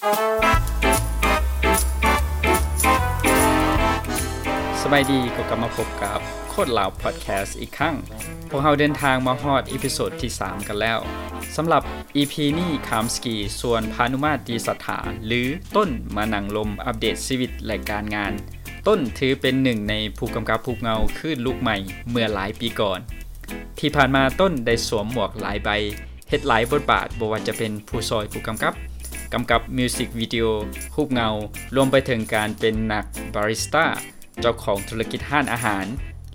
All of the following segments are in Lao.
ສະບາຍດີ ກໍກັບມາພົບກັບໂຄດລາວພອດແຄສອີກຄັ້ງ. ພວກເຮົາເດີນທາງມາຮອດອີພິໂສດທີສາມກັນແລ້ວ. ສຳລັບອີພີນີ້ ຄາມສະກີຊວນພານຸມາດ ຕີສັດຖາ ຫຼື ຕົ້ນ ມານັ່ງລົມອັບເດດຊີວິດ ແລະ ການງານ. ຕົ້ນຖືເປັນໜຶ່ງໃນຜູ້ກຳກັບຮູບເງົາຄື້ນລູກໃໝ່ເມື່ອຫຼາຍປີກ່ອນ. ທີ່ຜ່ານມາ ຕົ້ນໄດ້ສວມໝວກຫຼາຍໃບ, ເຮັດຫຼາຍບົດບາດ, ບໍ່ວ່າຈະເປັນຜູ້ຊ່ອຍຜູ້ກຳກັບ, ກຳກັບມິວສິກວິດີໂອ, ຮູບເງົາ, ລວມໄປເຖິງການເປັນນັກບາຣິສຕາ, ເຈົ້າຂອງທຸລະກິດຮ້ານອາຫານ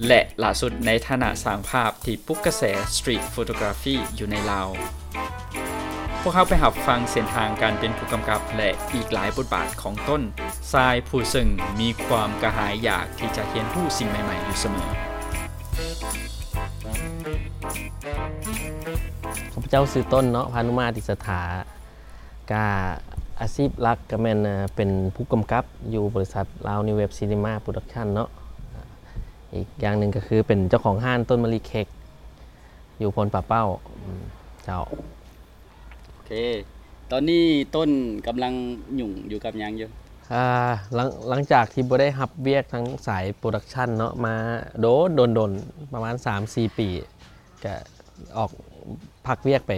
ແລະ ຫຼ້າສຸດໃນຖານະຊ່າງພາບທີ່ປຸກກະແສສະຕຣີດໂຟໂຕກຣາຟີຢູ່ໃນລາວ. ພວກເຮົາໄປຮັບຟັງເສັ້ນທາງການເປັນຜູ້ກຳກັບ ແລະ ອີກຫຼາຍບົດບາດຂອງຕົ້ນ ຊາຍຜູ້ເຊິ່ງມີຄວາມກະຫາຍຢາກທີ່ຈະຮຽນຮູ້ສິ່ງໃໝ່ໆຢູ່ສະເໝີ. ຂ້າພະເຈົ້າຊື່ຕົ້ນເນາະ ພານຸມາດ ຕິສະຖາ. ກະອາຊີບຫຼັກກະແມ່ນ ເປັນຜູ້ກຳກັບຢູ່ບໍລິສັດລາວນິວເວບຊີນີມາໂປຣດັກຊັນເນາະ. ອີກຢ່າງໜຶ່ງກະຄືເປັນເຈົ້າຂອງຮ້ານຕົ້ນມະລິເຄັກ ຢູ່ໂພນປ່າເປົ້າ. ອືມ ເຈົ້າ. ໂອເຄ ຕອນນີ້ຕົ້ນກຳລັງຫຍຸ້ງຢູ່ກັບຫຍັງຢູ່? ອ່າ ຫຼັງ ຫຼັງຈາກທີ່ບໍ່ໄດ້ຮັບວຽກທາງສາຍໂປຣດັກຊັນເນາະ ມາໂດນ ໂດນໆ ປະມານສາມສີ່ປີ ກະອອກ ພັກວຽກໄປ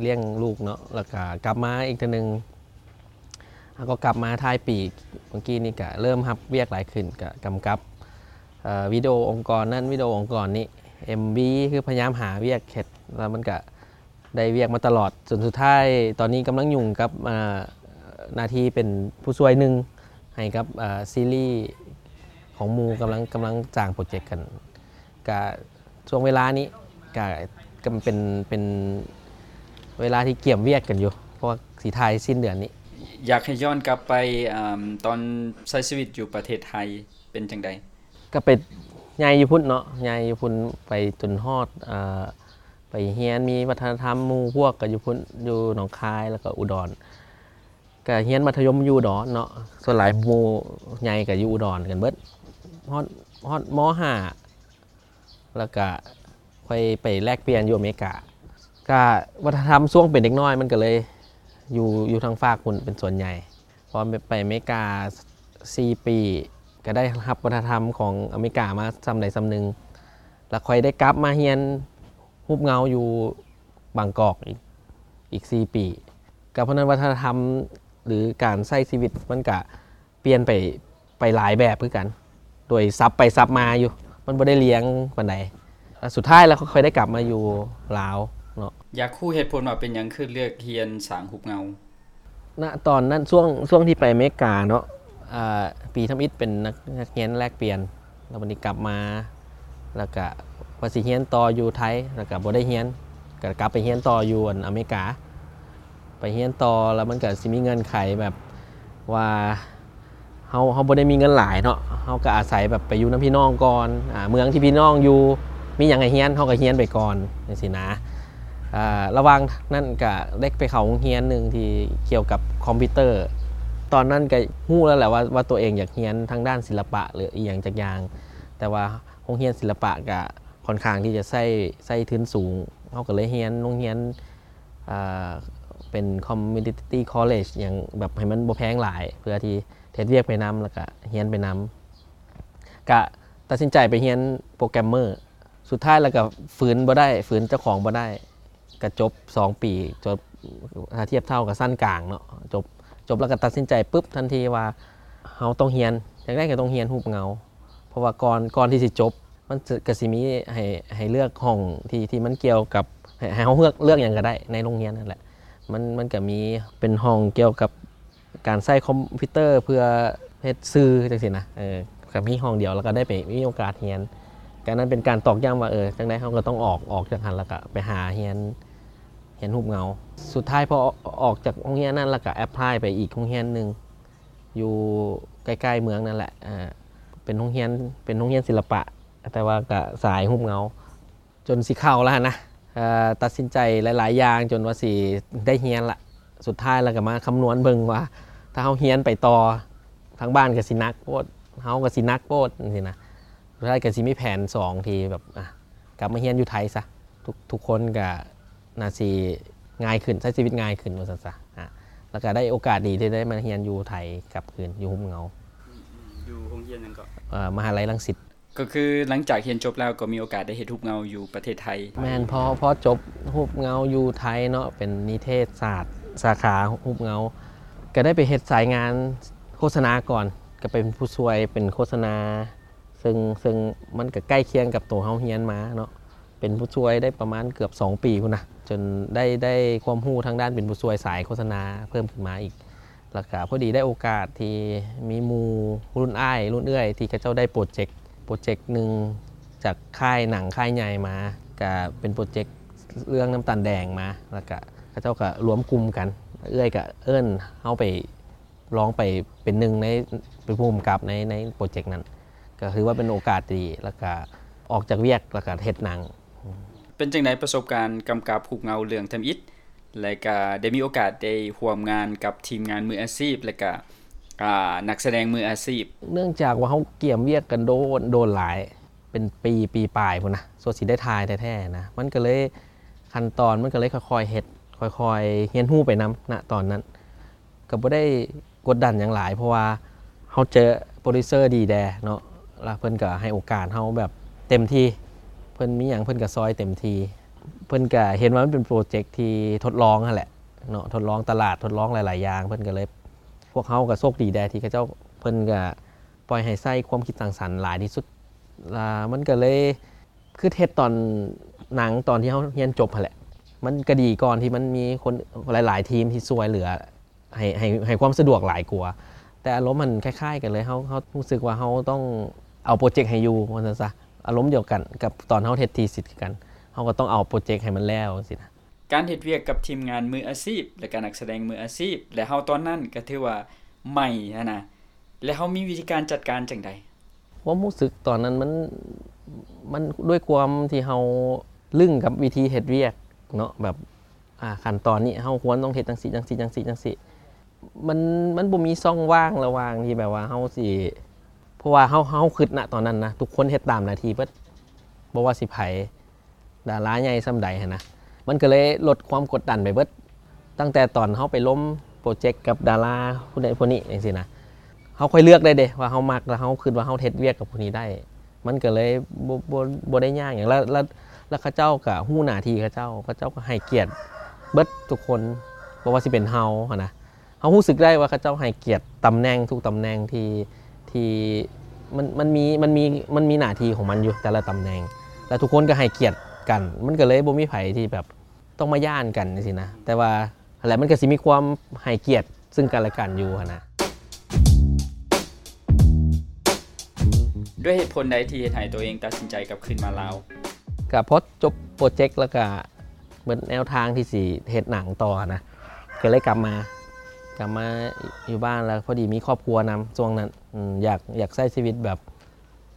ລ້ຽງລູກເນາະ ແລ້ວກະກັບມາອີກເທື່ອໜຶ່ງ ແລ້ວກໍກັບມາທ້າຍປີເມື່ອກີ້ນີ້ ກະເລີ່ມຮັບວຽກຫຼາຍຂຶ້ນ ກະກຳກັບ ເອີ ວິດີໂອອົງກອນນັ້ນ ວິດີໂອອົງກອນນີ້ ເອັມວີ ຄືພະຍາຍາມຫາວຽກເຮັດ ແລ້ວມັນກະໄດ້ວຽກມາຕະຫຼອດ ຈົນສຸດທ້າຍຕອນນີ້ກຳລັງຫຍຸ້ງກັບ ເອີ ໜ້າທີ່ເປັນຜູ້ຊ່ວຍໜຶ່ງໃຫ້ກັບ ເອີ ຊີຣີຂອງໝູ່ ກຳລັງ ກຳລັງສ້າງໂປຣເຈັກກັນ ກະ ຊ່ວງເວລານີ້ກະ ກະເປັນ ເປັນເວລາທີ່ກຽມວຽກກັນຢູ່ ເພາະວ່າຊິຖ່າຍສິ້ນເດືອນນີ້. ຢາກໃຫ້ຍ້ອນກັບໄປ ອາ ຕອນໃຊ້ຊີວິດຢູ່ປະເທດໄທເປັນຈັ່ງໃດ? ກະໄປໃຫຍ່ຢູ່ພຸ້ນເນາະ ໃຫຍ່ຢູ່ພຸ້ນ ໄປຈົນຮອດ ອາ ໄປຮຽນ ມີວັດທະນະທຳ ໝູ່ພວກກະຢູ່ພຸ້ນ ຢູ່ໜອງຄາຍ ແລ້ວກະອຸດອນ ກະຮຽນມັດທະຍົມຢູ່ອຸດອນເນາະ ສ່ວນຫຼາຍໝູ່ໃຫຍ່ກະຢູ່ອຸດອນກັນເບິດ ຮອດ ຮອດ ມໍຫ້າ ແລ້ວກະຄ່ອຍໄປແລກປ່ຽນຢູ່ອາເມລິກາ ກະວັດທະນະທຳຊ່ວງເປັນເດັກນ້ອຍມັນກະເລີຍຢູ່ ຢູ່ທາງຟາກພຸ້ນເປັນສ່ວນໃຫຍ່ ເພາະວ່າໄປອາເມລິກາສີ່ປີ ກະໄດ້ຮັບວັດທະນະທຳຂອງອາເມລິກາມາສ່ຳໃດສ່ຳໜຶ່ງ ແລ້ວຄ່ອຍໄດ້ກັບມາຮຽນຮູບເງົາຢູ່ບາງກອກອີກ ອີກສີ່ປີ ກະເພາະນັ້ນວັດທະນະທຳ ຫຼື ການໃຊ້ຊີວິດມັນກະປ່ຽນໄປ ໄປຫຼາຍແບບຄືກັນ ໂດຍສັບໄປສັບມາຢູ່ ມັນບໍ່ໄດ້ລຽງປານໃດ ແລ້ວສຸດທ້າຍແລ້ວຂ້ອຍໄດ້ກັບມາຢູ່ລາວເນາະ. ຢາກຮູ້ເຫດຜົນວ່າເປັນຫຍັງຄືເລືອກຮຽນສ້າງຮູບເງົາ? ນະຕອນນັ້ນ ຊ່ວງ ຊ່ວງທີ່ໄປອາເມລິກາເນາະ ອາ ປີທຳອິດເປັນນັກ ນັກຮຽນແລກປ່ຽນ ແລ້ວບັດນີ້ກັບມາ ແລ້ວກະວ່າຊິຮຽນຕໍ່ຢູ່ໄທ ແລ້ວກະບໍ່ໄດ້ຮຽນ ກະກັບໄປຮຽນຕໍ່ຢູ່ ອັນ ອາເມລິກາ ໄປຮຽນຕໍ່ ແລ້ວມັນກະຊິມີເງື່ອນໄຂແບບວ່າ ເຮົາ ເຮົາບໍ່ໄດ້ມີເງິນຫຼາຍເນາະ ເຮົາກະອາໄສແບບໄປຢູ່ນຳພີ່ນ້ອງກ່ອນ ອາ ເມືອງທີ່ພີ່ນ້ອງຢູ່ ມີຫຍັງໃຫ້ຮຽນ ເຮົາກະຮຽນໄປກ່ອນ ຈັ່ງຊີ້ນະ. ອາ ລະຫວ່າງນັ້ນກະໄດ້ໄປເຂົ້າໂຮງຮຽນໜຶ່ງທີ່ກ່ຽວກັບຄອມພິວເຕີ ຕອນນັ້ນກະຮູ້ແລ້ວແຫຼະວ່າ ວ່າຕົວເອງຢາກຮຽນທາງດ້ານສິລະປະ ຫຼື ອີ່ຫຍັງຈັກຢ່າງ ແຕ່ວ່າໂຮງຮຽນສິລະປະກະຄ່ອນຂ້າງທີ່ຈະໃຊ້ ໃຊ້ທຶນສູງ ເຮົາກະເລີຍຮຽນໂຮງຮຽນ ອາ ເປັນ community college ຫຍັງແບບໃຫ້ມັນບໍ່ແພງຫຼາຍ ເພື່ອທີ່ເຮັດວຽກໄປນຳ ແລ້ວກະຮຽນໄປນຳ ກະຕັດສິນໃຈໄປຮຽນໂປຣແກຣມເມີ ສຸດທ້າຍແລ້ວກະຝືນບໍ່ໄດ້ ຝືນເຈົ້າຂອງບໍ່ໄດ້ ກະຈົບສອງປີ ຈົບ ຖ້າທຽບເທົ່າກັບຊັ້ນກາງເນາະ ຈົບ ຈົບແລ້ວກະຕັດສິນໃຈປຶບທັນທີວ່າ ເຮົາຕ້ອງຮຽນ ຈັ່ງໃດກະຕ້ອງຮຽນຮູບເງົາ ເພາະວ່າກ່ອນ ກ່ອນທີ່ຊິຈົບ ມັນກະຊິມີໃຫ້ ໃຫ້ເລືອກຫ້ອງທີ່ ທີ່ມັນກ່ຽວກັບ ໃຫ້ ໃຫ້ເຮົາເລືອກ ເລືອກຫຍັງກະໄດ້ໃນໂຮງຮຽນຫັ້ນແຫຼະ ມັນ ມັນກະມີເປັນຫ້ອງກ່ຽວກັບການໃຊ້ຄອມພິວເຕີເພື່ອເຮັດສື່ຈັ່ງຊີ້ນະ ເອີ ກະມີຫ້ອງດຽວ ແລ້ວກະໄດ້ໄປມີໂອກາດຮຽນ ກະນັ້ນເປັນການຕອກຢ້ຳວ່າ ເອີ ຈັ່ງໃດເຮົາກະຕ້ອງອອກ ອອກຈາກຫັ້ນ ແລ້ວກະໄປຫາຮຽນ ຮຽນຮູບເງົາ. ສຸດທ້າຍພໍອອກຈາກໂຮງຮຽນນັ້ນ ແລ້ວກະແອັບພລາຍໄປອີກໂຮງຮຽນໜຶ່ງ ຢູ່ໃກ້ໆເມືອງນັ້ນແຫຼະ ເປັນໂຮງຮຽນ ເປັນໂຮງຮຽນສິລະປະ ແຕ່ວ່າກະສາຍຮູບເງົາ ຈົນຊິເຂົ້າແລ້ວຫັ້ນນະ ເອີ ຕັດສິນໃຈຫຼາຍໆຢ່າງຈົນວ່າຊິໄດ້ຮຽນລະ ສຸດທ້າຍແລ້ວກະມາຄຳນວນເບິ່ງວ່າ ຖ້າເຮົາຮຽນໄປຕໍ່ ທາງບ້ານກະຊິໜັກໂພດ ເຮົາກະຊິໜັກໂພດ ຈັ່ງຊີ້ນະ ສຸດທ້າຍກະຊິມີແຜນສອງທີ່ແບບ ອາ ກັບມາຮຽນຢູ່ໄທຊະ ທຸກ ທຸກຄົນກະໜ້າຊິງ່າຍຂຶ້ນ ໃຊ້ຊີວິດງ່າຍຂຶ້ນວ່າຊັ້ນຊະ ອາ ແລ້ວກໍໄດ້ໂອກາດດີທີ່ໄດ້ມາຮຽນຢູ່ໄທກັບຄືນ ຢູ່ຮູບເງົາ. ອືມໆ ຢູ່ໂຮງຮຽນຫຍັງເກາະ? ເອີ ມະຫາໄລລັງສິດ. ກໍຄືຫຼັງຈາກຮຽນຈົບແລ້ວກໍມີໂອກາດໄດ້ເຮັດຮູບເງົາຢູ່ປະເທດໄທ? ແມ່ນ, ພໍ ພໍຈົບຮູບເງົາຢູ່ໄທເນາະ ເປັນນິເທດສາດ ສາຂາຮູບເງົາ ກໍໄດ້ໄປເຮັດສາຍງານໂຄສະນາກ່ອນ ກໍເປັນຜູ້ຊ່ວຍເປັນໂຄສະນາ ເຊິ່ງ ເຊິ່ງມັນກໍໃກ້ຄຽງກັບໂຕເຮົາຮຽນມາເນາະ. ເປັນຜູ້ຊ່ວຍໄດ້ປະມານເກືອບສອງປີພຸ້ນນະ ຈົນໄດ້ ໄດ້ຄວາມຮູ້ທາງດ້ານເປັນຜູ້ຊ່ວຍສາຍໂຄສະນາເພີ່ມຂຶ້ນມາອີກ. ແລ້ວກະພໍດີໄດ້ໂອກາດທີ່ມີໝູ່ລຸ້ນອ້າຍລຸ້ນເອື້ອຍ ທີ່ເຂົາເຈົ້າໄດ້ໂປຣເຈັກ ໂປຣເຈັກໜຶ່ງຈາກຄ້າຍໜັງຄ້າຍໃຫຍ່ມາ ກະເປັນໂປຣເຈັກເລື່ອງນ້ຳຕານແດງມາ. ແລ້ວກະເຂົາເຈົ້າກະລວມກຸ່ມກັນ ເອື້ອຍກະເອີ້ນເຮົາໄປ ລອງໄປເປັນໜຶ່ງໃນ ເປັນຜູ້ກຳກັບໃນ ໃນໂປຣເຈັກນັ້ນ ກໍຖືວ່າເປັນໂອກາດທີ່ດີ ແລ້ວກະອອກຈາກວຽກ ແລ້ວກະເຮັດໜັງ. ເປັນຈັ່ງໃດປະສົບການກຳກັບຮູບເງົາເລື່ອງທຳອິດ ແລະ ກະໄດ້ມີໂອກາດໄດ້ຮ່ວມງານກັບທີມງານມືອາຊີບ ແລະ ກະ ອ່າ ນັກສະແດງມືອາຊີບ? ເນື່ອງຈາກວ່າເຮົາກຽມວຽກກັນໂດນ ໂດນຫຼາຍ ເປັນປີ ປີປາຍພຸ້ນນະ ສ່ວນຊິໄດ້ຖ່າຍແທ້ໆນະ ມັນກໍເລີຍ ຂັ້ນຕອນມັນກໍເລີຍຄ່ອຍໆເຮັດ ຄ່ອຍໆຮຽນຮູ້ໄປນຳ ນະຕອນນັ້ນ. ກໍບໍ່ໄດ້ກົດດັນຫຍັງຫຼາຍ ເພາະວ່າເຮົາເຈີໂປຣດິວເຊີດີແດ່ເນາະ ແລ້ວເພິ່ນກໍໃຫ້ໂອກາດເຮົາແບບເຕັມທີ່ ເພິ່ນມີຫຍັງເພິ່ນກໍຊ່ອຍເຕັມທີ່. ເພິ່ນກໍເຫັນວ່າມັນເປັນໂປຣເຈັກທີ່ທົດລອງຫັ້ນແຫຼະເນາະ ທົດລອງຕະຫຼາດ ທົດລອງຫຼາຍໆຢ່າງ ເພິ່ນກໍເລີຍ ພວກເຮົາກໍໂຊກດີແດ່ທີ່ເຂົາເຈົ້າ ເພິ່ນກໍປ່ອຍໃຫ້ໃຊ້ຄວາມຄິດສ້າງສັນຫຼາຍທີ່ສຸດ ລະມັນກໍເລີຍ ຄືເຮັດຕອນໜັງຕອນທີ່ເຮົາຮຽນຈົບຫັ້ນແຫຼະ ມັນກໍດີກ່ອນທີ່ມັນມີຄົນຫຼາຍໆທີມທີ່ຊ່ວຍເຫຼືອໃຫ້ ໃຫ້ ໃຫ້ຄວາມສະດວກຫຼາຍກວ່າ. ແຕ່ອາລົມມັນຄ້າຍໆກັນເລີຍ ເຮົາ ເຮົາຮູ້ສຶກວ່າເຮົາຕ້ອງເອົາໂປຣເຈັກໃຫ້ຢູ່ ວ່າຊັ້ນຊະ ອາລົມດຽວກັນກັບຕອນເຮົາເຮັດທີຊິດຄືກັນ ເຮົາກໍຕ້ອງເອົາໂປຣເຈັກໃຫ້ມັນແລ້ວ ຈັ່ງຊີ້ນະ. ການເຮັດວຽກກັບທີມງານມືອາຊີບ ແລະ ກະນັກສະແດງມືອາຊີບ ແລະ ເຮົາຕອນນັ້ນກໍຖືວ່າໃໝ່ຫັ້ນນະ ແລະ ເຮົາມີວິທີການຈັດການຈັ່ງໃດ? ຄວາມຮູ້ສຶກຕອນນັ້ນມັນ ມັນດ້ວຍຄວາມທີ່ເຮົາລຶ້ງກັບວິທີເຮັດວຽກເນາະ ແບບ ອ່າ ຂັ້ນຕອນນີ້ເຮົາຄວນຕ້ອງເຮັດຈັ່ງຊີ້ ຈັ່ງຊີ້ ຈັ່ງຊີ້ ຈັ່ງຊີ້ ມັນ ມັນບໍ່ມີຊ່ອງວ່າງລະຫວ່າງທີ່ແບບວ່າເຮົາຊິ ເພາະວ່າເຮົາ ເຮົາຄິດນະຕອນນັ້ນນະ ທຸກຄົນເຮັດຕາມໜ້າທີ່ເບິດ ບໍ່ວ່າຊິໃຜ ດາລາໃຫຍ່ສ່ຳໃດຫັ້ນນະ ມັນກໍເລີຍລົດຄວາມກົດດັນໄປເບິດ. ຕັ້ງແຕ່ຕອນເຮົາໄປລົມໂປຣເຈັກກັບດາລາຜູ້ໃດຜູ້ນີ້ຈັ່ງຊີ້ນະ ເຮົາຄ່ອຍເລືອກໄດ້ເດ້ວ່າເຮົາມັກ ແລ້ວເຮົາຄິດວ່າເຮົາເຮັດວຽກກັບຜູ້ນີ້ໄດ້ ມັນກໍເລີຍບໍ່ ບໍ່ ບໍ່ໄດ້ຍາກຫຍັງ. ແລ້ວ ແລ້ວ ແລ້ວເຂົາເຈົ້າກໍຮູ້ໜ້າທີ່ເຂົາເຈົ້າ ເຂົາເຈົ້າກໍໃຫ້ກຽດເບິດທຸກຄົນ ບໍ່ວ່າຊິເປັນເຮົາຫັ້ນນະ ເຮົາຮູ້ສຶກໄດ້ວ່າເຂົາເຈົ້າໃຫ້ກຽດຕຳແໜ່ງ ທຸກຕຳແໜ່ງທີ່ ທີ່ມັນ ມັນມີ ມັນມີ ມັນມີໜ້າທີ່ຂອງມັນຢູ່ແຕ່ລະຕຳແໜ່ງ ແລ້ວທຸກຄົນກໍໃຫ້ກຽດກັນ ມັນກໍເລີຍບໍ່ມີໃຜທີ່ແບບຕ້ອງມາຢ້ານກັນຈັ່ງຊີ້ນະ. ແຕ່ວ່າຫັ້ນແຫຼະ ມັນກໍຊິມີຄວາມໃຫ້ກຽດເຊິ່ງກັນແລະກັນຢູ່ຫັ້ນນະ. ດ້ວຍເຫດຜົນໃດທີ່ເຮັດໃຫ້ຕົວເອງຕັດສິນໃຈກັບຄືນມາລາວ? ກໍພໍຈົບໂປຣເຈັກແລ້ວກໍ ເບິດແນວທາງທີ່ຊິເຮັດໜັງຕໍ່ນະ ກໍເລີຍກັບມາ ກັບມາຢູ່ບ້ານ ແລ້ວພໍດີມີຄອບຄົວນຳຊ່ວງນັ້ນ ອືມ ຢາກ ຢາກໃຊ້ຊີວິດແບບ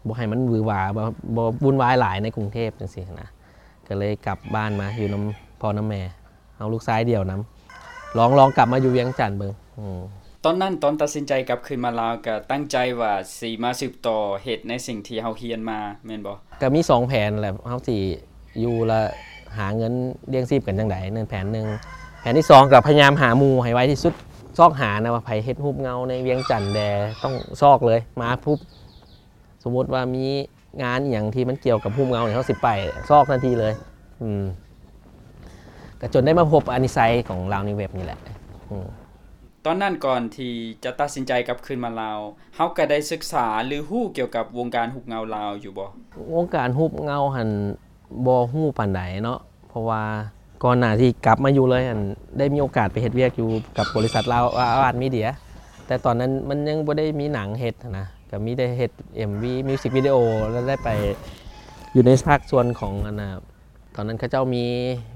ບໍ່ໃຫ້ມັນຫວືຫວາ ບໍ່ ບໍ່ວຸ່ນວາຍຫຼາຍໃນກຸງເທບຈັ່ງຊີ້ນະ ກໍເລີຍກັບບ້ານມາຢູ່ນຳພໍ່ນຳແມ່ ເຮົາລູກຊາຍດຽວນຳ ລອງ ລອງກັບມາຢູ່ວຽງຈັນເບິ່ງ. ອືມ ຕອນນັ້ນ ຕອນຕັດສິນໃຈກັບຄືນມາລາວ ກໍຕັ້ງໃຈວ່າຊິມາສືບຕໍ່ເຮັດໃນສິ່ງທີ່ເຮົາຮຽນມາແມ່ນບໍ່? ກໍມີສອງແຜນແຫຼະ ເຮົາຊິຢູ່ລະຫາເງິນລ້ຽງຊີບກັນຈັ່ງໃດ ນັ້ນແຜນໜຶ່ງ. ແຜນທີສອງ ກໍພະຍາຍາມຫາໝູ່ໃຫ້ໄວທີ່ສຸດ ຊອກຫານະວ່າໃຜເຮັດຮູບເງົາໃນວຽງຈັນແດ່ ຕ້ອງຊອກເລີຍ ມາປຸບ ສົມມຸດວ່າມີງານອີ່ຫຍັງທີ່ມັນກ່ຽວກັບຮູບເງົານີ້ ເຮົາຊິໄປຊອກທັນທີເລີຍ. ອືມ ກໍຈົນໄດ້ມາພົບອານິໄຊຂອງລາວນິວເວັບນີ້ແຫຼະ. ອືມ ຕອນນັ້ນກ່ອນທີ່ຈະຕັດສິນໃຈກັບຄືນມາລາວ ເຮົາກໍໄດ້ສຶກສາ ຫຼື ຮູ້ກ່ຽວກັບວົງການຮູບເງົາລາວຢູ່ບໍ່? ວົງການຮູບເງົາຫັ້ນບໍ່ຮູ້ປານໃດເນາະ ເພາະວ່າກ່ອນໜ້າທີ່ກັບມາຢູ່ເລີຍຫັ້ນ ໄດ້ມີໂອກາດໄປເຮັດວຽກຢູ່ກັບບໍລິສັດລາວອາວາດມີເດຍ ແຕ່ຕອນນັ້ນມັນຍັງບໍ່ໄດ້ມີໜັງເຮັດຫັ້ນນະ ກໍມີແຕ່ເຮັດເອັມວີ ມິວສິກວິດີໂອ ແລ້ວໄດ້ໄປຢູ່ໃນພາກສ່ວນຂອງອັນນ່າ ຕອນນັ້ນເຂົາເຈົ້າມີ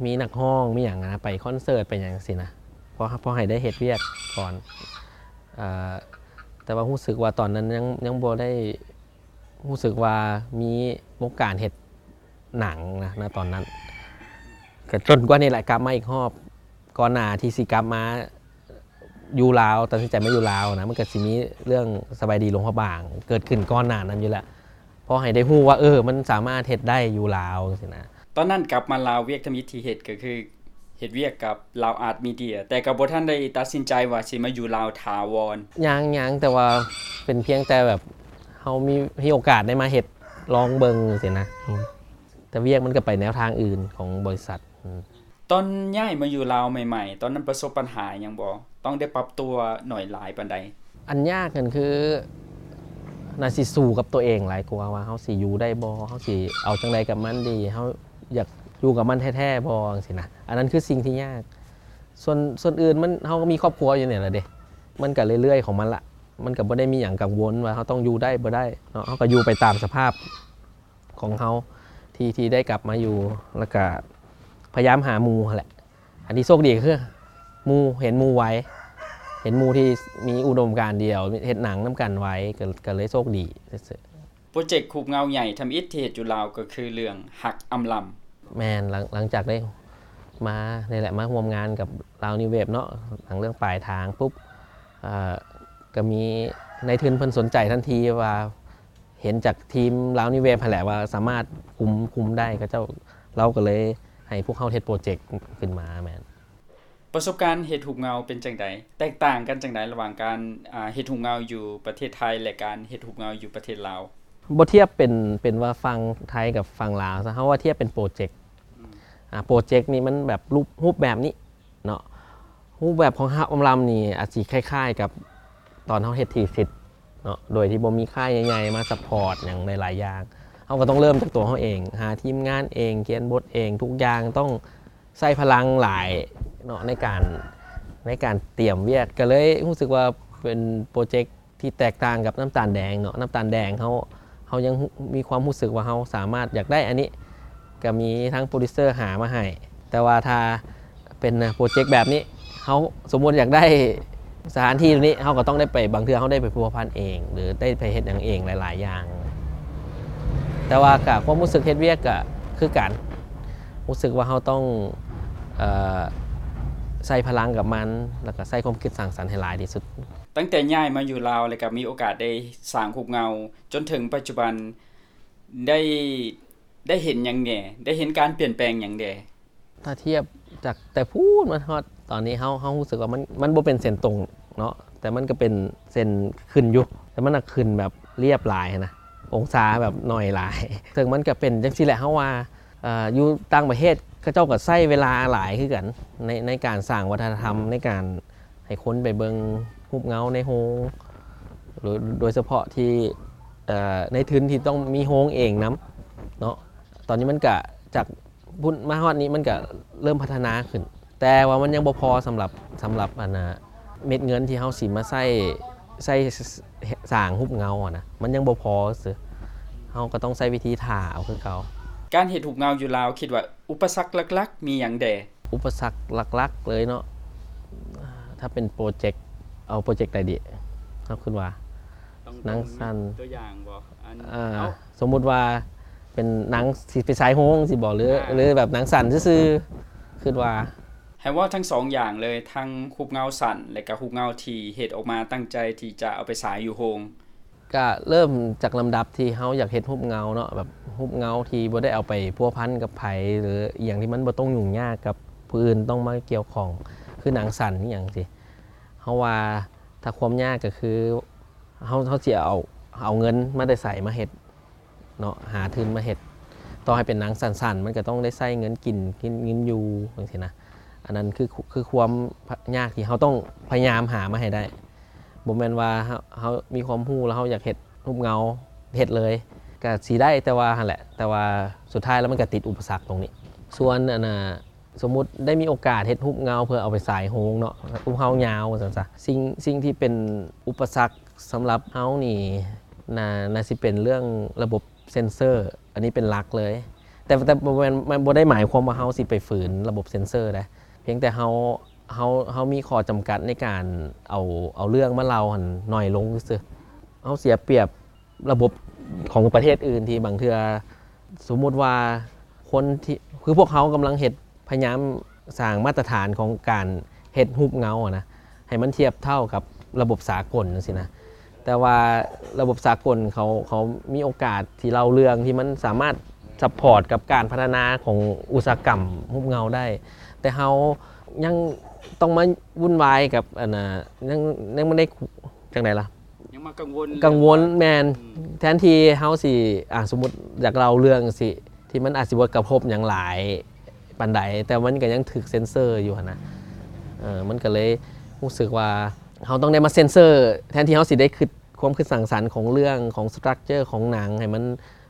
ມີນັກຮ້ອງ ມີຫຍັງນະ ໄປຄອນເສີດ ໄປຫຍັງຊີ້ນະ ພໍ ພໍໃຫ້ໄດ້ເຮັດວຽກກ່ອນ ເອີ ແຕ່ວ່າຮູ້ສຶກວ່າຕອນນັ້ນຍັງ ຍັງບໍ່ໄດ້ຮູ້ສຶກວ່າມີວົງການເຮັດໜັງນະ ນະຕອນນັ້ນ ກໍຈົນກວ່ານີ້ແຫຼະກັບມາອີກຮອບ ກ່ອນໜ້າທີ່ຊິກັບມາ ຢູ່ລາວ ຕັດສິນໃຈມາຢູ່ລາວນະ ມັນກໍຊິມີເລື່ອງສະບາຍດີຫຼວງພະບາງເກີດຂຶ້ນກ່ອນໜ້ານັ້ນຢູ່ແລ້ວ ພໍໃຫ້ໄດ້ຮູ້ວ່າ ເອີ ມັນສາມາດເຮັດໄດ້ຢູ່ລາວຈັ່ງຊີ້ນະ. ຕອນນັ້ນກັບມາລາວ ວຽກທຳອິດທີ່ເຮັດກໍຄື ເຮັດວຽກກັບລາວອາດມີເດຍ ແຕ່ກໍບໍ່ທັນໄດ້ຕັດສິນໃຈວ່າຊິມາຢູ່ລາວຖາວອນ. ຍັງ ຍັງ ແຕ່ວ່າເປັນພຽງແຕ່ແບບເຮົາມີ ມີໂອກາດໄດ້ມາເຮັດລອງເບິ່ງຊີ້ນະ ອືມ ແຕ່ວຽກມັນກໍໄປແນວທາງອື່ນຂອງບໍລິສັດ ອືມ. ຕອນຍ້າຍມາຢູ່ລາວໃໝ່ໆ ຕອນນັ້ນປະສົບບັນຫາຫຍັງບໍ່? ຕ້ອງໄດ້ປັບຕົວໜ້ອຍຫຼາຍປານໃດ? ອັນຍາກນັ້ນຄື ໜ້າຊິສູ້ກັບຕົວເອງຫຼາຍກວ່າ ວ່າເຮົາຊິຢູ່ໄດ້ບໍ່? ເຮົາຊິເອົາຈັ່ງໃດກັບມັນດີ? ເຮົາຢາກຢູ່ກັບມັນແທ້ໆບໍ່? ຈັ່ງຊີ້ນະ ອັນນັ້ນຄືສິ່ງທີ່ຍາກ. ສ່ວນ ສ່ວນອື່ນມັນ ເຮົາກໍມີຄອບຄົວຢູ່ນີ້ລະເດ ມັນກໍເລື້ອຍໆຂອງມັນລະ ມັນກໍບໍ່ໄດ້ມີຫຍັງກັງວົນວ່າເຮົາຕ້ອງຢູ່ໄດ້ບໍ່ໄດ້ເນາະ ເຮົາກໍຢູ່ໄປຕາມສະພາບ ຂອງເຮົາທີ່ ທີ່ໄດ້ກັບມາຢູ່ ແລ້ວກະພະຍາຍາມຫາໝູ່ຫັ້ນແຫຼະ. ອັນທີ່ໂຊກດີກໍຄືໝູ່ ເຫັນໝູ່ໄວ ເຫັນໝູ່ທີ່ມີອຸດົມການດຽວ ເຮັດໜັງນຳກັນໄວ ກໍ ກໍເລີຍໂຊກດີຊື່ໆ. ໂປຣເຈັກຮູບເງົາໃຫຍ່ທຳອິດທີ່ເຮັດຢູ່ລາວກໍຄືເລື່ອງຮັກອຳລຳ. ແມ່ນ ຫຼັງ ຫຼັງຈາກໄດ້ມານີ້ແຫຼະ ມາຮ່ວມງານກັບລາວນິວເວບເນາະ ຫຼັງເລື່ອງປາຍທາງປຸບ ເອີ ກໍມີນາຍທຶນເພິ່ນສົນໃຈທັນທີວ່າ ເຫັນຈາກທີມລາວນິວເວບຫັ້ນແຫຼະວ່າສາມາດຄຸມ ຄຸມໄດ້ ເຂົາເຈົ້າ ລາວກໍເລີຍໃຫ້ພວກເຮົາເຮັດໂປຣເຈັກຂຶ້ນມາ. ແມ່ນ. ປະສົບການເຮັດຮູບເງົາເປັນຈັ່ງໃດ? ແຕກຕ່າງກັນຈັ່ງໃດລະຫວ່າງການ ອາ ເຮັດຮູບເງົາຢູ່ປະເທດໄທ ແລະ ການເຮັດຮູບເງົາຢູ່ປະເທດລາວ? ບໍ່ທຽບເປັນ ເປັນວ່າຝັ່ງໄທກັບຝັ່ງລາວຊະ ເຮົາວ່າທຽບເປັນໂປຣເຈັກ ອືມ ອາ ໂປຣເຈັກນີ້ມັນແບບຮູບ ຮູບແບບນີ້ ເນາະ ຮູບແບບຂອງຮັກອຳລຳນີ້ອາດຊິຄ້າຍໆກັບຕອນເຮົາເຮັດທີສິດເນາະ ໂດຍທີ່ບໍ່ມີຄ້າຍໃຫຍ່ໆມາຊັບພອດຫຍັງຫຼາຍໆຢ່າງ ເຮົາກໍຕ້ອງເລີ່ມຈາກຕົວເຮົາເອງ ຫາທີມງານເອງ ຂຽນບົດເອງ ທຸກຢ່າງຕ້ອງໃຊ້ພະລັງຫຼາຍເນາະ ໃນການ ໃນການຕຽມວຽກ ກໍເລີຍຮູ້ສຶກວ່າເປັນໂປຣເຈັກ ທີ່ແຕກຕ່າງກັບນ້ຳຕານແດງເນາະ ນ້ຳຕານແດງເຮົາ ເຮົາຍັງ ມີຄວາມຮູ້ສຶກວ່າເຮົາສາມາດຢາກໄດ້ອັນນີ້ ກໍມີທາງໂປຣດິວເຊີຫາມາໃຫ້ ແຕ່ວ່າຖ້າເປັນໂປຣເຈັກແບບນີ້ ເຮົາສົມມຸດຢາກໄດ້ສະຖານທີ່ໂຕນີ້ ເຮົາກໍຕ້ອງໄດ້ໄປ ບາງເທື່ອເຮົາໄດ້ໄປພົວພັນເອງ ຫຼືໄດ້ໄປເຮັດຫຍັງເອງຫຼາຍໆຢ່າງ ແຕ່ວ່າກະຄວາມຮູ້ສຶກເຮັດວຽກກະຄືກັນ ຮູ້ສຶກວ່າເຮົາຕ້ອງ ເອີ ໃຊ້ພະລັງກັບມັນ ແລ້ວກະໃຊ້ຄວາມຄິດສ້າງສັນໃຫ້ຫຼາຍທີ່ສຸດ. ຕັ້ງແຕ່ຍ້າຍມາຢູ່ລາວ ແລ້ວກໍມີໂອກາດໄດ້ສ້າງຮູບເງົາ ຈົນເຖິງປັດຈຸບັນ ໄດ້ ໄດ້ເຫັນຫຍັງແດ່? ໄດ້ເຫັນການປ່ຽນແປງຫຍັງແດ່? ຖ້າທຽບຈາກແຕ່ພຸ້ນມາຮອດຕອນນີ້ ເຮົາ ເຮົາຮູ້ສຶກວ່າມັນ ມັນບໍ່ເປັນເສັ້ນຕົງເນາະ ແຕ່ມັນກໍເປັນເສັ້ນຂຶ້ນຢູ່ ແຕ່ມັນນະຂຶ້ນແບບລຽບຫຼາຍຫັ້ນນະ ອົງສາແບບໜ້ອຍຫຼາຍ ເຊິ່ງມັນກໍເປັນຈັ່ງຊີ້ແຫຼະ ເຮົາວ່າ ເອີ ຢູ່ຕ່າງປະເທດ ເຂົາເຈົ້າກໍໃຊ້ເວລາຫຼາຍຄືກັນ ໃນ ໃນການສ້າງວັດທະນະທຳ ໃນການໃຫ້ຄົນໄປເບິ່ງຮູບເງົາໃນໂຮງ ໂດຍ ໂດຍສະເພາະທີ່ ເອີ ໃນທຶນທີ່ຕ້ອງມີໂຮງເອງນຳເນາະ ຕອນນີ້ມັນກະຈາກພຸ້ນມາຮອດນີ້ ມັນກະເລີ່ມພັດທະນາຂຶ້ນ ແຕ່ວ່າມັນຍັງບໍ່ພໍສຳລັບ ສຳລັບ ອັນນ່າ ເມັດເງິນທີ່ເຮົາຊິມາໃຊ້ ໃຊ້ ສ- ສ້າງຮູບເງົາຫັ້ນນະ ມັນຍັງບໍ່ພໍຊື່ ເຮົາກໍຕ້ອງໃຊ້ວິທີຖ້າເອົາຄືເກົ່າ. ການເຮັດຮູບເງົາຢູ່ລາວ ຄິດວ່າອຸປະສັກຫຼັກໆມີຫຍັງແດ່? ອຸປະສັກຫຼັກໆເລີຍເນາະ ຖ້າເປັນໂປຣເຈັກ ເອົາໂປຣເຈັກໃດດີ? ເຮົາຄິດວ່າ ໜັງສັ້ນ ຕົວຢ່າງບໍ່? ອັນ ເອີ ເອົາ ສົມມຸດວ່າເປັນໜັງ ຊິເປັນສາຍໂຮງຊີ້ບໍ່? ຫຼື ອ່າ ຫຼືແບບໜັງສັ້ນຊື່ໆ ຄິດວ່າ ໃຫ້ເວົ້າທັງສອງຢ່າງເລີຍ ທັງຮູບເງົາສັ້ນ ແລະກະຮູບເງົາທີ່ເຮັດອອກມາຕັ້ງໃຈທີ່ຈະເອົາໄປສາຍຢູ່ໂຮງ. ກະເລີ່ມຈາກລຳດັບທີ່ເຮົາຢາກເຮັດຮູບເງົາເນາະ ແບບຮູບເງົາທີ່ບໍ່ໄດ້ເອົາໄປພົວພັນກັບໃຜ ຫຼືອີ່ຫຍັງທີ່ມັນບໍ່ຕ້ອງຫຍຸ້ງຍາກກັບຜູ້ອື່ນຕ້ອງມາກ່ຽວຂ້ອງ ຄືໜັງສັ້ນອີ່ຫຍັງຊີ້ ເຮົາວ່າຖ້າຄວາມຍາກກໍຄື ເຮົາ ເຮົາຊິເອົາ ເອົາເງິນມາແຕ່ໃສມາເຮັດເນາະ ຫາທຶນມາເຮັດ ຕໍ່ໃຫ້ເປັນໜັງສັ້ນໆ ມັນກໍຕ້ອງໄດ້ໃຊ້ເງິນກິນ ກິນ ເງິນຢູ່ຈັ່ງຊີ້ນະ ອັນນັ້ນຄື ຄືຄວາມຍາກທີ່ເຮົາຕ້ອງພະຍາຍາມຫາມາໃຫ້ໄດ້ ບໍ່ແມ່ນວ່າເຮົາ ເຮົາມີຄວາມຮູ້ແລ້ວເຮົາຢາກເຮັດຮູບເງົາເຮັດເລີຍ ກໍຊິໄດ້ ແຕ່ວ່າຫັ້ນແຫຼະ ແຕ່ວ່າສຸດທ້າຍແລ້ວມັນກໍຕິດອຸປະສັກຕົງນີ້ ສ່ວນ ອັນນ່າ ສົມມຸດໄດ້ມີໂອກາດເຮັດຮູບເງົາເພື່ອເອົາໄປສາຍໂຮງເນາະ ຮູບເງົາຍາວວ່າຊັ້ນຊະ ສິ່ງ ສິ່ງທີ່ເປັນອຸປະສັກສຳລັບເຮົານີ້ ໜ້າ ໜ້າຊິເປັນເລື່ອງລະບົບເຊັນເຊີ ອັນນີ້ເປັນຫຼັກເລີຍ ແຕ່ ແຕ່ບໍ່ແມ່ນ ມັນບໍ່ໄດ້ໝາຍຄວາມວ່າເຮົາຊິໄປຝືນລະບົບເຊັນເຊີໃດ ພຽງແຕ່ເຮົາ ເຮົາ ເຮົາມີຂໍ້ຈຳກັດໃນການເອົາ ເອົາເລື່ອງມາເລົ່າຫັ້ນໜ້ອຍລົງຊື່ໆ ເຮົາເສຍປຽບ ລະບົບຂອງປະເທດອື່ນທີ່ບາງເທື່ອ ສົມມຸດວ່າຄົນທີ່ ຄືພວກເຮົາກຳລັງເຮັດ ພະຍາຍາມສ້າງມາດຕະຖານຂອງການເຮັດຮູບເງົາຫັ້ນນະ ໃຫ້ມັນທຽບເທົ່າກັບລະບົບສາກົນຈັ່ງຊີ້ນະ ແຕ່ວ່າລະບົບສາກົນເຂົາ ເຂົາມີໂອກາດທີ່ເລົ່າເລື່ອງທີ່ມັນສາມາດຊັບພອດກັບການພັດທະນາຂອງອຸດສາຫະກຳຮູບເງົາໄດ້ ແຕ່ເຮົາຍັງຕ້ອງມາວຸ່ນວາຍກັບອັນນ່າ ຍັງ ຍັງບໍ່ໄດ້ ຈັ່ງໃດລະ ຍັງມາກັງວົນ ກັງວົນ ເລື່ອງວ່າ ແມ່ນ ອືມ ແທນທີ່ເຮົາຊິ ອ່າ ສົມມຸດຢາກເລົ່າເລື່ອງຈັ່ງຊີ້ ທີ່ມັນອາດຊິບໍ່ກະທົບຫຍັງຫຼາຍປານໃດ ແຕ່ມັນກໍຍັງຖືກເຊັນເຊີຢູ່ຫັ້ນນະ ເອີ ມັນກໍເລີຍຮູ້ສຶກວ່າເຮົາຕ້ອງໄດ້ມາເຊັນເຊີ ແທນທີ່ເຮົາຊິໄດ້ຄິດ ຄວາມຄິດສ້າງສັນຂອງເລື່ອງ ຂອງສະຕຣັກເຈີຂອງໜັງ ໃຫ້ມັນ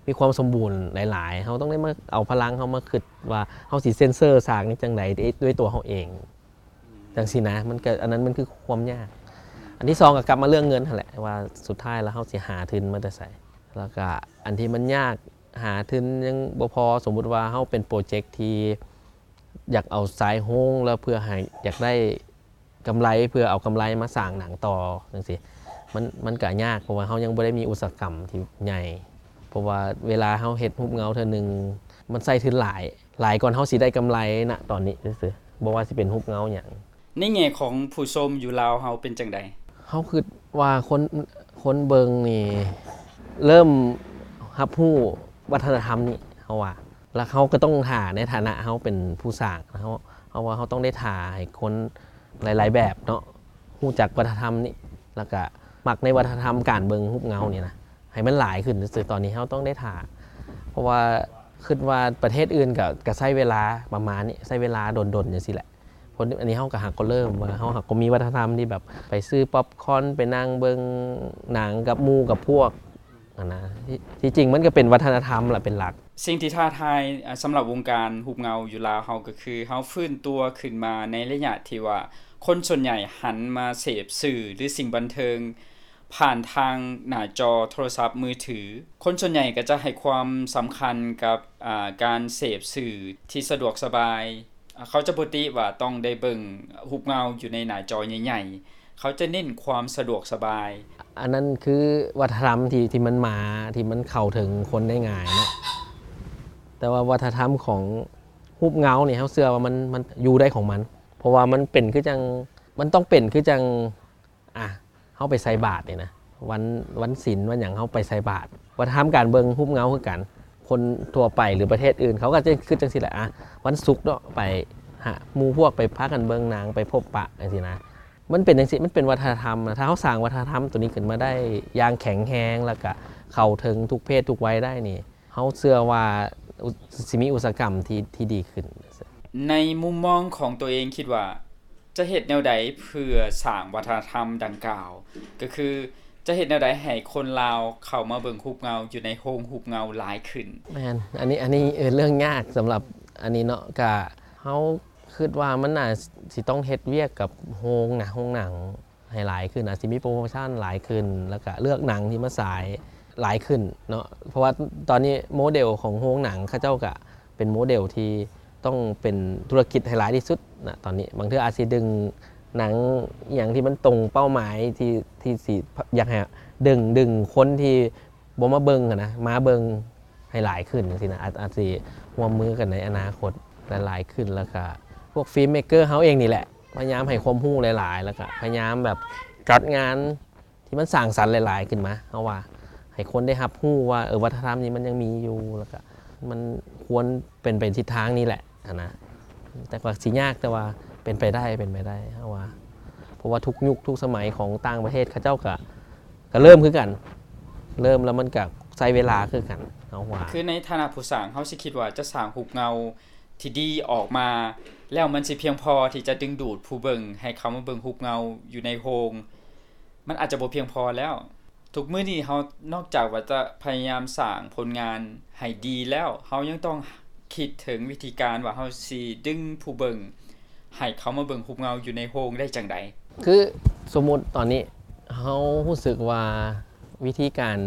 ມີຄວາມສົມບູນຫຼາຍໆ ເຮົາຕ້ອງໄດ້ມາເອົາພະລັງເຮົາມາຄິດວ່າ ເຮົາຊິເຊັນເຊີສາກນີ້ຈັ່ງໃດດ້ວຍ ດ້ວຍຕົວເຮົາເອງ ອືມ ຈັ່ງຊີ້ນະ ມັນກໍ ອັນນັ້ນມັນຄືຄວາມຍາກ ອືມ ອັນທີສອງກໍກັບມາເລື່ອງເງິນຫັ້ນແຫຼະ ວ່າສຸດທ້າຍແລ້ວເຮົາຊິຫາທຶນມາແຕ່ໃສ ແລ້ວກໍອັນທີ່ມັນຍາກ ຫາທຶນຍັງບໍ່ພໍ ສົມມຸດວ່າເຮົາເປັນໂປຣເຈັກທີ່ຢາກເອົາສາຍໂຮງ ແລ້ວເພື່ອໃຫ້ ຢາກໄດ້ກຳໄລ ເພື່ອເອົາກຳໄລມາສ້າງໜັງຕໍ່ຈັ່ງຊີ້ ມັນ ມັນກໍຍາກ ເພາະວ່າເຮົາຍັງບໍ່ໄດ້ມີອຸດສາຫະກຳທີ່ໃຫຍ່ ເພາະວ່າເວລາເຮົາເຮັດຮູບເງົາເທື່ອໜຶ່ງ ມັນໃຊ້ທຶນຫຼາຍ ຫຼາຍກ່ອນເຮົາຊິໄດ້ກຳໄລນະຕອນນີ້ຊື່ໆ ບໍ່ວ່າຊິເປັນຮູບເງົາຫຍັງ. ໃນແງ່ຂອງຜູ້ຊົມຢູ່ລາວເຮົາເປັນຈັ່ງໃດ? ເຮົາຄິດວ່າຄົນ ຄົນເບິ່ງນີ້ເລີ່ມຮັບຮູ້ວັດທະນະທຳນີ້ ເຮົາວ່າ ແລ້ວເຮົາກໍຕ້ອງຖ້າໃນຖານະເຮົາເປັນຜູ້ສ້າງ ເຮົາ ເຮົາວ່າເຮົາຕ້ອງໄດ້ຖ້າໃຫ້ຄົນຫຼາຍໆແບບເນາະ ຮູ້ຈັກວັດທະນະທຳນີ້ ແລ້ວກະມັກໃນວັດທະນະທຳການເບິ່ງຮູບເງົານີ້ນະ ໃຫ້ມັນຫຼາຍຂຶ້ນຊື່ໆ ຕອນນີ້ເຮົາຕ້ອງໄດ້ຖ້າ ເພາະວ່າຄິດວ່າປະເທດອື່ນກະ ກະໃຊ້ເວລາປະມານນີ້ ໃຊ້ເວລາດົນໆຈັ່ງຊີ້ແຫຼະ ຄົນ ອັນນີ້ເຮົາກໍຫາກໍເລີ່ມວ່າ ເຮົາຫາກໍມີວັດທະນະທຳທີ່ແບບໄປຊື້ປັອບຄອນ ໄປນັ່ງເບິ່ງໜັງກັບໝູ່ກັບພວກຫັ້ນນະ ທີ່ ທີ່ຈິງມັນກໍເປັນວັດທະນະທຳລະເປັນຫຼັກ. ສິ່ງທີ່ທ້າທາຍ ອາ ສຳລັບວົງການຮູບເງົາຢູ່ລາວເຮົາ ກໍຄືເຮົາຟື້ນຕົວຂຶ້ນມາໃນໄລຍະທີ່ວ່າ ຄົນສ່ວນໃຫຍ່ຫັນມາເສບສື່ ຫຼື ສິ່ງບັນເທີງຜ່ານທາງໜ້າຈໍໂທລະສັບມືຖື. ຄົນສ່ວນໃຫຍ່ກໍຈະໃຫ້ຄວາມສຳຄັນກັບ ອາ ການເສບສື່ທີ່ສະດວກສະບາຍ. ອາ ເຂົາຈະບໍ່ຕິວ່າຕ້ອງໄດ້ເບິ່ງຮູບເງົາຢູ່ໃນໜ້າຈໍໃຫຍ່ໆ ເຂົາຈະເນັ້ນຄວາມສະດວກສະບາຍ. ອັນນັ້ນຄືວັດທະນະທຳທີ່ ທີ່ມັນມາ ທີ່ມັນເຂົ້າເຖິງຄົນໄດ້ງ່າຍເນາະ ແຕ່ວ່າວັດທະນະທຳຂອງຮູບເງົານີ້ ເຮົາເຊື່ອວ່າມັນ ມັນຢູ່ໄດ້ຂອງມັນ ເພາະວ່າມັນເປັນຄືຈັ່ງ ມັນຕ້ອງເປັນຄືຈັ່ງ ອາ ເຮົາໄປໃສ່ບາດນີ້ນະ ວັນ ວັນສິນວັນຫຍັງເຮົາໄປໃສ່ບາດ ວັດທະນະທຳການເບິ່ງຮູບເງົາຄືກັນ ຄົນທົ່ວໄປ ຫຼື ປະເທດອື່ນເຂົາກໍຈະຄິດຈັ່ງຊີ້ແຫຼະ ອາ ວັນສຸກເນາະ ໄປຫາໝູ່ພວກ ໄປພາກັນເບິ່ງໜັງ ໄປພົບປະຈັ່ງຊີ້ນະ ມັນເປັນຈັ່ງຊີ້ ມັນເປັນວັດທະນະທຳນະ ຖ້າເຮົາສ້າງວັດທະນະທຳໂຕນີ້ຂຶ້ນມາໄດ້ຢ່າງແຂງແຮງ ແລ້ວກະເຂົ້າເຖິງທຸກເພດທຸກໄວໄດ້ນີ້ ເຮົາເຊື່ອວ່າ ອຸ ຊິມີອຸດສາຫະກຳທີ່ ທີ່ດີຂຶ້ນ. ໃນມຸມມອງຂອງຕົວເອງຄິດວ່າ ຈະເຮັດແນວໃດເພື່ອສ້າງວັດທະນະທຳດັ່ງກ່າວ? ກໍຄືຈະເຮັດແນວໃດໃຫ້ຄົນລາວເຂົ້າມາເບິ່ງຮູບເງົາຢູ່ໃນໂຮງຮູບເງົາຫຼາຍຂຶ້ນ? ແມ່ນ ອັນນີ້ ອັນນີ້ ເອີ ເລື່ອງຍາກສຳລັບອັນນີ້ເນາະ ກະເຮົາຄິດວ່າມັນໜ້າຊິຕ້ອງເຮັດວຽກກັບໂຮງນະ ໂຮງໜັງ ໃຫ້ຫຼາຍຂຶ້ນ ອາດຊິມີໂປຣໂມຊັນຫຼາຍຂຶ້ນ ແລ້ວກະເລືອກໜັງທີ່ມາສາຍຫຼາຍຂຶ້ນເນາະ ເພາະວ່າຕອນນີ້ໂມເດວຂອງໂຮງໜັງເຂົາເຈົ້າກະເປັນໂມເດວທີ່ຕ້ອງເປັນທຸລະກິດໃຫ້ຫຼາຍທີ່ສຸດນະຕອນນີ້ ບາງເທື່ອອາດຊິດຶງໜັງອີ່ຫຍັງທີ່ມັນຕົງເປົ້າໝາຍທີ່ ທີ່ຊິຢາກໃຫ້ດຶງ ດຶງຄົນທີ່ ບໍ່ມາເບິ່ງຫັ້ນນະ ມາເບິ່ງໃຫ້ຫຼາຍຂຶ້ນຈັ່ງຊີ້ນະ ອາດ ອາດຊິຮ່ວມມືກັນໃນອະນາຄົດຫຼາຍໆຂຶ້ນ ແລ້ວກະພວກຟິມເມກເກີເຮົາເອງນີ້ແຫຼະ ພະຍາຍາມໃຫ້ຄວາມຮູ້ຫຼາຍໆ ແລ້ວກະພະຍາຍາມແບບຈັດງານທີ່ມັນສ້າງສັນຫຼາຍໆຂຶ້ນມາ ເຮົາວ່າໃຫ້ຄົນໄດ້ຮັບຮູ້ວ່າ ເອີ ວັດທະນະທຳນີ້ມັນຍັງມີຢູ່ ແລ້ວກະມັນຄວນເປັນໄປທິດທາງນີ້ແຫຼະຫັ້ນນະ ແຕ່ກວ່າຊິຍາກ ແຕ່ວ່າເປັນໄປໄດ້ ເປັນໄປໄດ້ ເຮົາວ່າ ເພາະວ່າທຸກຍຸກທຸກສະໄໝຂອງຕ່າງປະເທດເຂົາເຈົ້າກະ ກະເລີ່ມຄືກັນ ເລີ່ມແລ້ວມັນກະໃຊ້ເວລາຄືກັນ ເຮົາວ່າ. ຄືໃນຖານະຜູ້ສ້າງ ເຮົາຊິຄິດວ່າຈະສ້າງຮູບເງົາທີ່ດີອອກມາ ແລ້ວມັນຊິພຽງພໍທີ່ຈະດຶງດູດຜູ້ເບິ່ງໃຫ້ເຂົ້າມາເບິ່ງຮູບເງົາຢູ່ໃນໂຮງ ມັນອາດຈະບໍ່ພຽງພໍແລ້ວ. ທຸກມື້ນີ້ເຮົານອກຈາກວ່າຈະພະຍາຍາມສ້າງຜົນງານໃຫ້ດີແລ້ວ ເຮົາຍັງຕ້ອງຄິດເຖິງວິທີການວ່າເຮົາຊິດຶງຜູ້ເບິ່ງໃຫ້ເຂົ້າມາເບິ່ງຮູບເງົາຢູ່ໃນໂຮງໄດ້ຈັ່ງໃດ? ຄືສົມມຸດຕອນນີ້ ເຮົາຮູ້ສຶກວ່າວິທີການ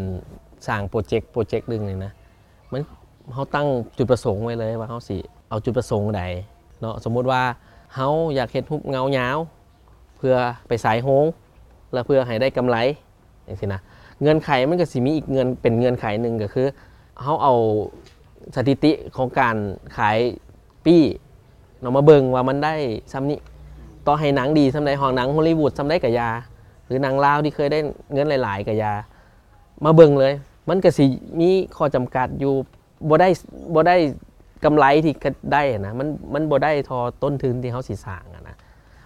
ສ້າງໂປຣເຈັກ ໂປຣເຈັກໜຶ່ງນີ້ນະ ມັນ ເຮົາຕັ້ງຈຸດປະສົງໄວ້ເລີຍວ່າເຮົາຊິເອົາຈຸດປະສົງໃດເນາະ. ສົມມຸດວ່າເຮົາຢາກເຮັດຮູບເງົາຍາວ ເພື່ອໄປສາຍໂຮງ ແລະ ເພື່ອໃຫ້ໄດ້ກຳໄລ ຈັ່ງຊີ້ນະ. ເງື່ອນໄຂມັນກໍຊິມີອີກເງື່ອນ ເປັນເງື່ອນໄຂໜຶ່ງ ກໍຄືເຮົາເອົາສະຖິຕິຂອງການຂາຍປີ້ເນາະ ມາເບິ່ງວ່າມັນໄດ້ສ່ຳນີ້. ຕໍ່ໃຫ້ໜັງດີສ່ຳໃດ ຮອດໜັງຮອລລີວູດສ່ຳໃດກໍຢ່າ ຫຼື ໜັງລາວທີ່ເຄີຍໄດ້ເງິນຫຼາຍໆກໍຢ່າ ມາເບິ່ງເລີຍ ມັນກໍຊິມີຂໍ້ຈຳກັດຢູ່ ບໍ່ໄດ້ ບໍ່ໄດ້ ກຳໄລທີ່ໄດ້ນະ ມັນ ມັນບໍ່ໄດ້ທໍ່ຕົ້ນທຶນທີ່ເຮົາຊິສ້າງນະ.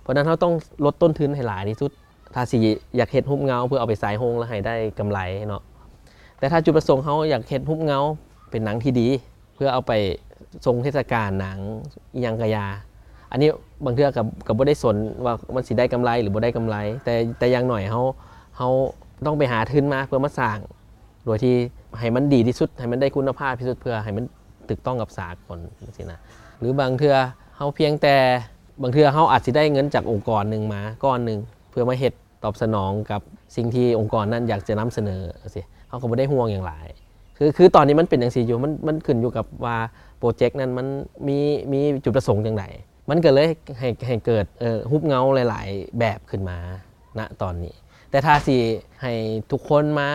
ເພາະນັ້ນເຮົາຕ້ອງລົດຕົ້ນທຶນໃຫ້ຫຼາຍທີ່ສຸດ ຖ້າຊິຢາກເຮັດຮູບເງົາເພື່ອເອົາໄປສາຍໂຮງແລ້ວໃຫ້ໄດ້ກຳໄລເນາະ. ແຕ່ຖ້າຈຸດປະສົງເຮົາຢາກເຮັດຮູບເງົາເປັນໜັງທີ່ດີ ເພື່ອເອົາໄປຊົງເທດສະການໜັງອີ່ຫຍັງກະຢ່າ ອັນນີ້ບາງເທື່ອກະ ກະບໍ່ໄດ້ສົນວ່າມັນຊິໄດ້ກຳໄລຫຼືບໍ່ໄດ້ກຳໄລ ແຕ່ ແຕ່ຢ່າງໜ້ອຍເຮົາ ເຮົາຕ້ອງໄປຫາທຶນມາເພື່ອມາສ້າງ ໂດຍທີ່ໃຫ້ມັນດີທີ່ສຸດ ໃຫ້ມັນໄດ້ຄຸນນະພາບທີ່ສຸດ ເພື່ອໃຫ້ມັນຖືກຕ້ອງກັບສາກົນ ຈັ່ງຊີ້ນະ. ຫຼືບາງເທື່ອເຮົາພຽງແຕ່ ບາງເທື່ອເຮົາອາດຊິໄດ້ເງິນຈາກອົງກອນໜຶ່ງມາກ້ອນໜຶ່ງ ເພື່ອມາເຮັດຕອບສະໜອງກັບສິ່ງທີ່ອົງກອນນັ້ນຢາກຈະນຳສະເໜີ ຈັ່ງຊີ້ ເຮົາກໍບໍ່ໄດ້ຫ່ວງຫຍັງຫຼາຍ. ຄື ຄືຕອນນີ້ມັນເປັນຈັ່ງຊີ້ຢູ່ ມັນ ມັນຂຶ້ນຢູ່ກັບວ່າໂປຣເຈັກນັ້ນມັນມີ ມີຈຸດປະສົງຈັ່ງໃດ ມັນກໍເລີຍໃຫ້ ໃຫ້ເກີດ ເອີ ຮູບເງົາຫຼາຍໆແບບຂຶ້ນມາ ນະຕອນນີ້. ແຕ່ຖ້າຊິໃຫ້ທຸກຄົນມາ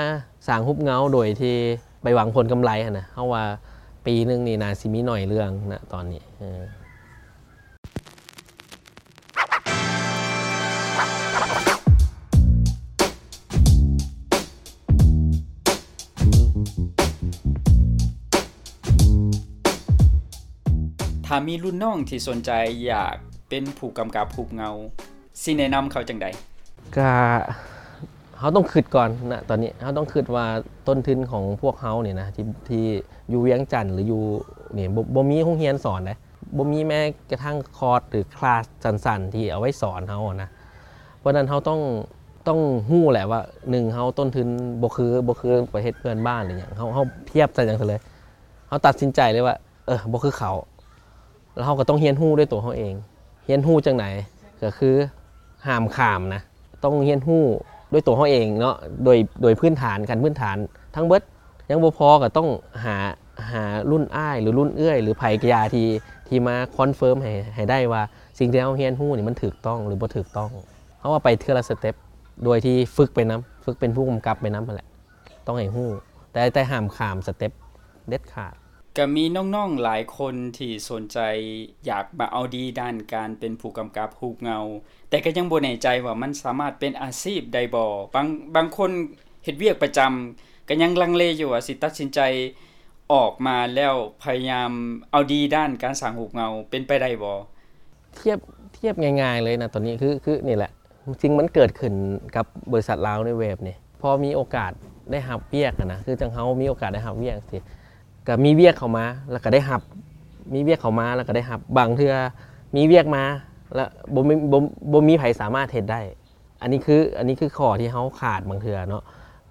ສ້າງຮູບເງົາໂດຍທີ່ໄປຫວັງຜົນກຳໄລຫັ້ນນະ ເຮົາວ່າປີໜຶ່ງນີ້ໜ້າຊິມີໜ້ອຍເລື່ອງນະຕອນນີ້. ເອີ ຖ້າມີລຸ້ນນ້ອງທີ່ສົນໃຈຢາກເປັນຜູ້ກຳກັບຮູບເງົາ ຊິແນະນຳເຂົາຈັ່ງໃດ? ກະ ເຮົາຕ້ອງຄິດກ່ອນນະ ຕອນນີ້ເຮົາຕ້ອງຄິດວ່າຕົ້ນທຶນຂອງພວກເຮົານີ້ນະ ທີ່ ທີ່ຢູ່ວຽງຈັນ ຫຼືຢູ່ນີ້ ບໍ່ ບໍ່ມີໂຮງຮຽນສອນເດ້ ບໍ່ມີແມ້ກະທັ້ງຄອດ ຫຼືຄລາສສັ້ນໆທີ່ເອົາໄວ້ສອນເຮົານະ. ເພາະນັ້ນເຮົາຕ້ອງ ຕ້ອງຮູ້ແຫຼະວ່າ ໜຶ່ງ ເຮົາຕົ້ນທຶນບໍ່ຄື ບໍ່ຄືປະເທດເພື່ອນບ້ານ ຫຼືຫຍັງ ເຮົາ ເຮົາທຽບໃສ່ຫຍັງຊະເລີຍ ເຮົາຕັດສິນໃຈເລີຍວ່າ ເອີ ບໍ່ຄືເຂົາ ແລ້ວເຮົາກໍຕ້ອງຮຽນຮູ້ດ້ວຍຕົວເຮົາເອງ. ຮຽນຮູ້ຈັ່ງໃດ? ກໍຄືຫ້າມຂ້າມນະ ຕ້ອງຮຽນຮູ້ດ້ວຍຕົວເຮົາເອງເນາະ ໂດຍ ໂດຍພື້ນຖານ ຂັ້ນພື້ນຖານທັງເບິດ. ຍັງບໍ່ພໍກໍຕ້ອງຫາ ຫາລຸ້ນອ້າຍ ຫຼືລຸ້ນເອື້ອຍ ຫຼືໃຜກະຢ່າທີ່ ທີ່ມາຄອນເຟີມໃຫ້ ໃຫ້ໄດ້ວ່າສິ່ງທີ່ເຮົາຮຽນຮູ້ນີ້ມັນຖືກຕ້ອງ ຫຼືບໍ່ຖືກຕ້ອງ. ເຮົາວ່າໄປເທື່ອລະສະເຕັບ ໂດຍທີ່ຝຶກໄປນຳ ຝຶກເປັນຜູ້ກຳກັບໄປນຳຫັ້ນແຫຼະ ຕ້ອງໃຫ້ຮູ້ ແຕ່ ແຕ່ຫ້າມຂ້າມສະເຕັບເດັດຂາດ. ກະມີນ້ອງໆຫຼາຍຄົນທີ່ສົນໃຈຢາກມາເອົາດີດ້ານການເປັນຜູ້ກຳກັບຮູບເງົາ ແຕ່ກະຍັງບໍ່ແນ່ໃຈວ່າມັນສາມາດເປັນອາຊີບໄດ້ບໍ່. ບາງ ບາງຄົນເຮັດວຽກປະຈຳກະຍັງລັງເລຢູ່ວ່າຊິຕັດສິນໃຈອອກມາແລ້ວພະຍາຍາມເອົາດີດ້ານການສ້າງຮູບເງົາ ເປັນໄປໄດ້ບໍ່? ທຽບ ທຽບງ່າຍໆເລີຍນະ ຕອນນີ້ຄື ຄືນີ້ແຫຼະ ສິ່ງມັນເກີດຂຶ້ນກັບບໍລິສັດລາວນິວເວບນີ້ ພໍມີໂອກາດໄດ້ຮັບວຽກຫັ້ນນະ ຄືຈັ່ງເຮົາມີໂອກາດໄດ້ຮັບວຽກຊີ້ ກະມີວຽກເຂົ້າມາ ແລ້ວກະໄດ້ຮັບ ມີວຽກເຂົ້າມາ ແລ້ວກະໄດ້ຮັບ. ບາງເທື່ອມີວຽກມາ ແລ້ວບໍ່ມີ ບໍ່ ບໍ່ມີໃຜສາມາດເຮັດໄດ້. ອັນນີ້ຄື ອັນນີ້ຄືຂໍ້ທີ່ເຮົາຂາດບາງເທື່ອເນາະ.